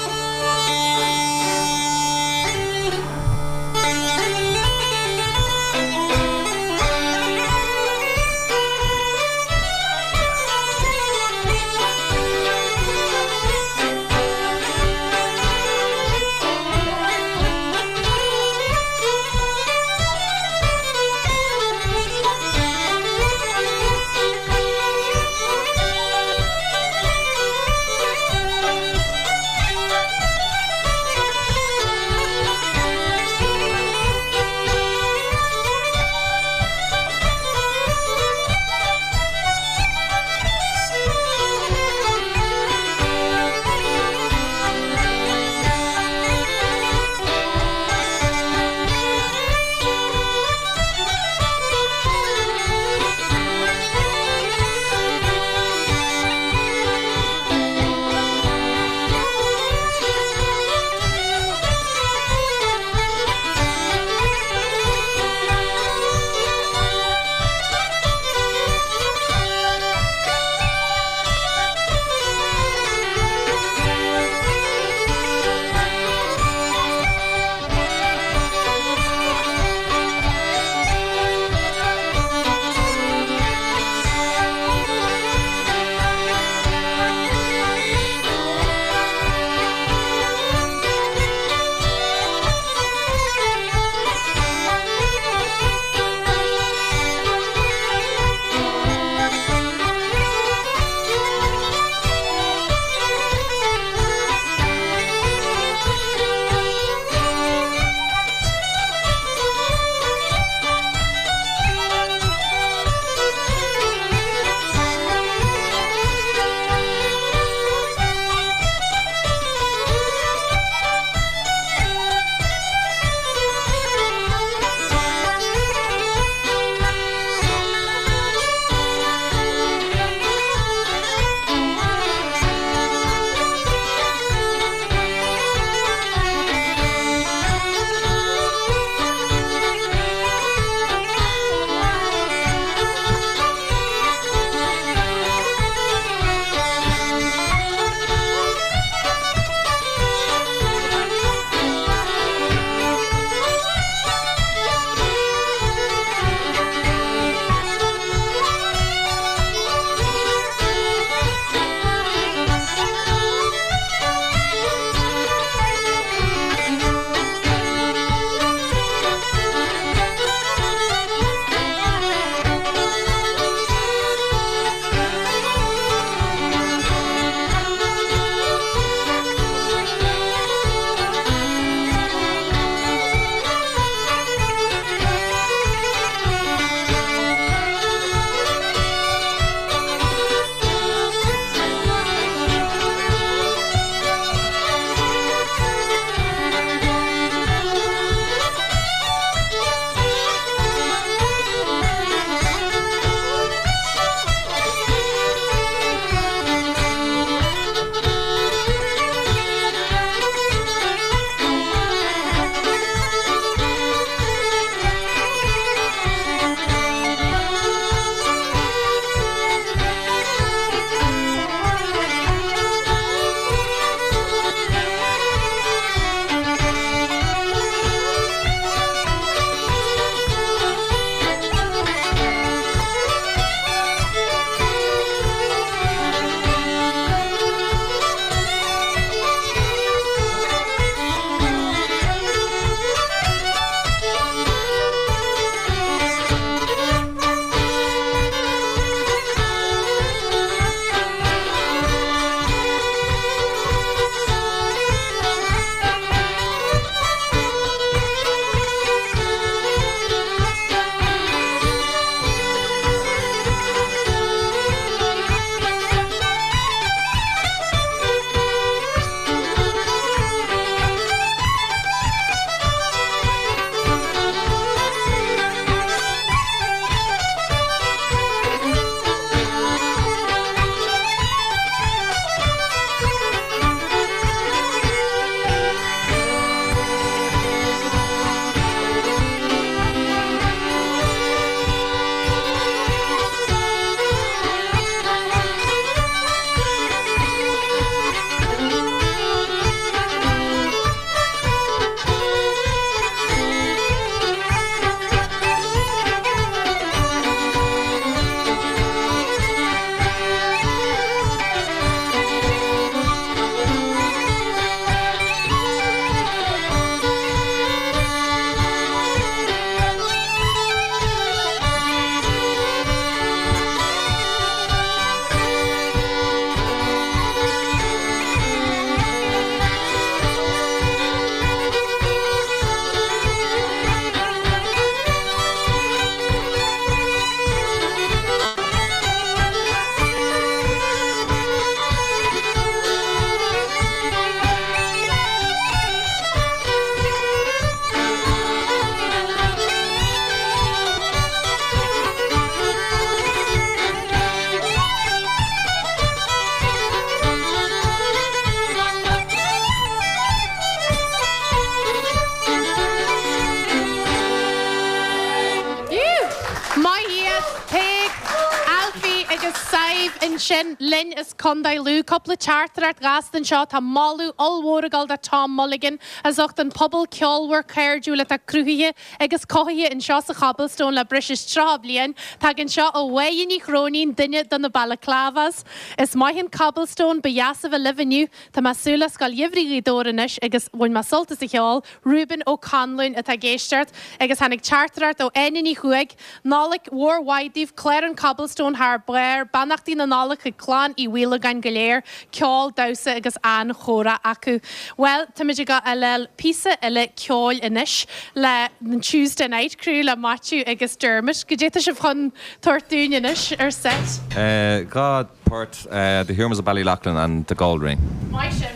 Speaker 1: ansin linn as Contae Lú. Cúpla teachtaireacht ghasta anseo. Tá moladh ollmhór ag dul do Tom Mulligan as ucht an pobal ceolmhar cairdiúil atá cruthaithe agus cothaithe anseo sa Chobblestone le breis is 30 bliain. Tagann seo ó Mháire Ní Chróinín, duine de na Balaclavas. Is maith an Cobblestone, ba dheas a bheith libh inniu. Tá mé ag súil le Scoil Gheimhridh Ghaoth Dobhair anois agus bhain mé sult as an cheol. Reuben Ó Conluain atá ag éisteacht agus tháinig teachtaireacht ó Áine Ní Chuaig, Nollaig mhór mhaith daoibh, clár an Cobblestone thar barr, beannachtaí na Nollag chuig clann Uí Mhaolagáin go léir, ceol, damhsa agus an-chomhrá acu. Bhuel, táimid ag gabháil píosa eile ceoil anois le an Tuesday Night Crew le Maitiú agus Dermot. Goidé tá sibh chun tabhairt dúinn anois ar set?
Speaker 16: 2 port, The Humours of Ballyloughlin and The Gold Ring.
Speaker 1: Maith sibh.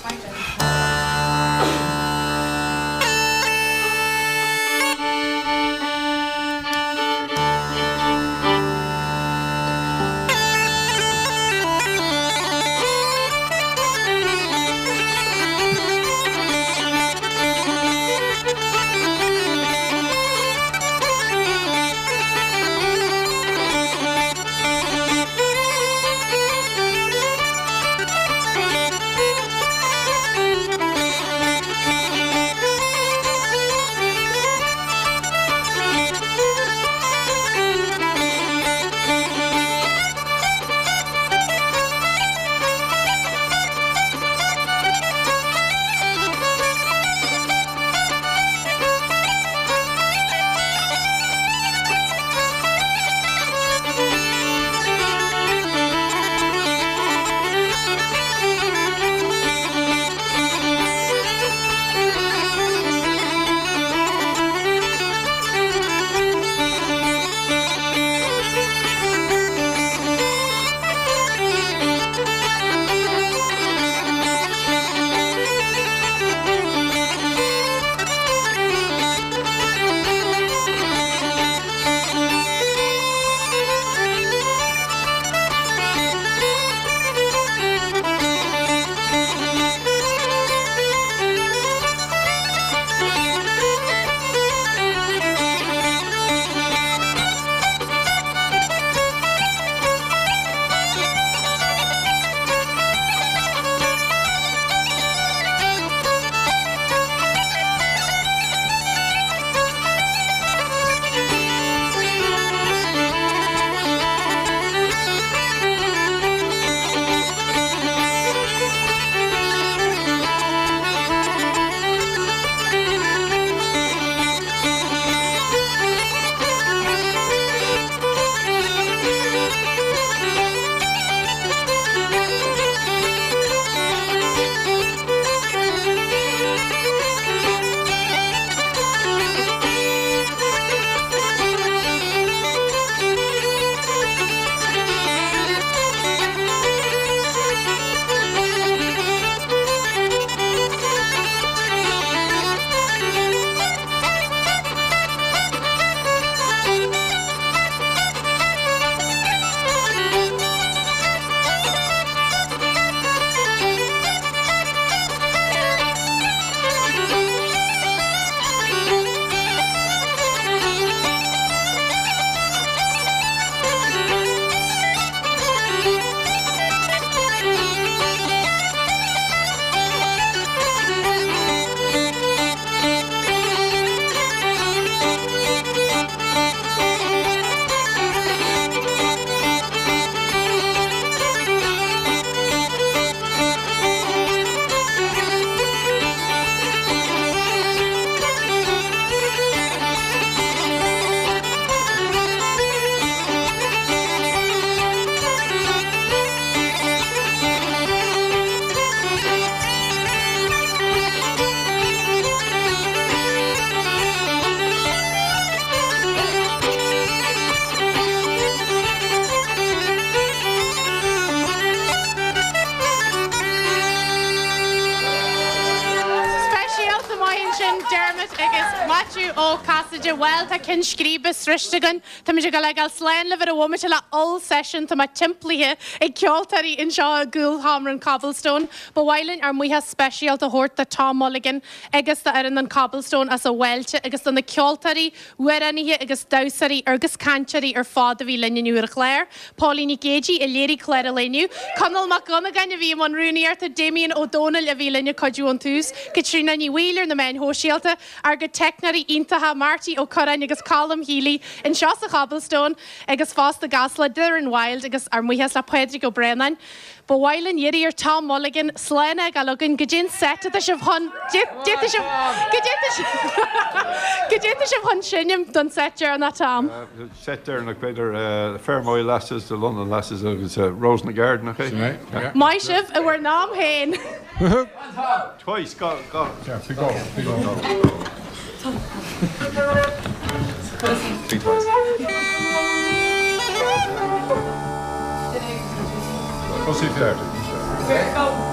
Speaker 1: Maith sibh. Dermot agus Maitiú Ó Casaide. Bhuel, tá ceann scríbe sroichte againn. Táimid ag dul a fhágáil slán libh ar an bhomaite le oll-seisiún. Tá mé timplaithe ag ceoltóirí anseo i gcúlsheomra an Cobblestone. Ba mhaith linn ár mbuíochas speisialta a thabhairt do Tom Mulligan agus do fhoireann an Cobblestone as an bhfáilte agus do na ceoltóirí, amhránaithe agus damhsóirí agus cainteoirí ar fad a bhí linn inniu ar an chlár. Póilín Nic Géidigh a léirigh clár an lae inniu, Conall Mac Dhonnagáin a bhí i mbun rúnaíochta, Damien Ó Dónaill a bhí linn ag cuidiú ón tús, Caitríona Ní Bhaoill ar na meáin shóisialta, ár gcuid teicneoirí iontacha Marty Ó Curráin agus Colm Healy anseo sa Chobblestone agus fosta i gCasla, Doireann Wilde agus ár mbuíochas le Pádraig Ó Braonáin. Ba mhaith linn iarraidh ar Tom Mulligan slán a fhágáil againn. Goidé an set atá sibh chun, goidé tá sibh, goidé tá sibh, goidé tá sibh chun seinm don set deireanach, Tom?
Speaker 2: Set deireanach b'fhéidir Fermoy Lasses, The London Lasses agus Rose in the Garden, nach é?
Speaker 4: Sin é, yeah.
Speaker 1: Maith sibh i bhur n-am féin!
Speaker 2: Twice, go, go.
Speaker 4: Yeah, big go, big go.
Speaker 16: Big twice.
Speaker 2: Tosaigh.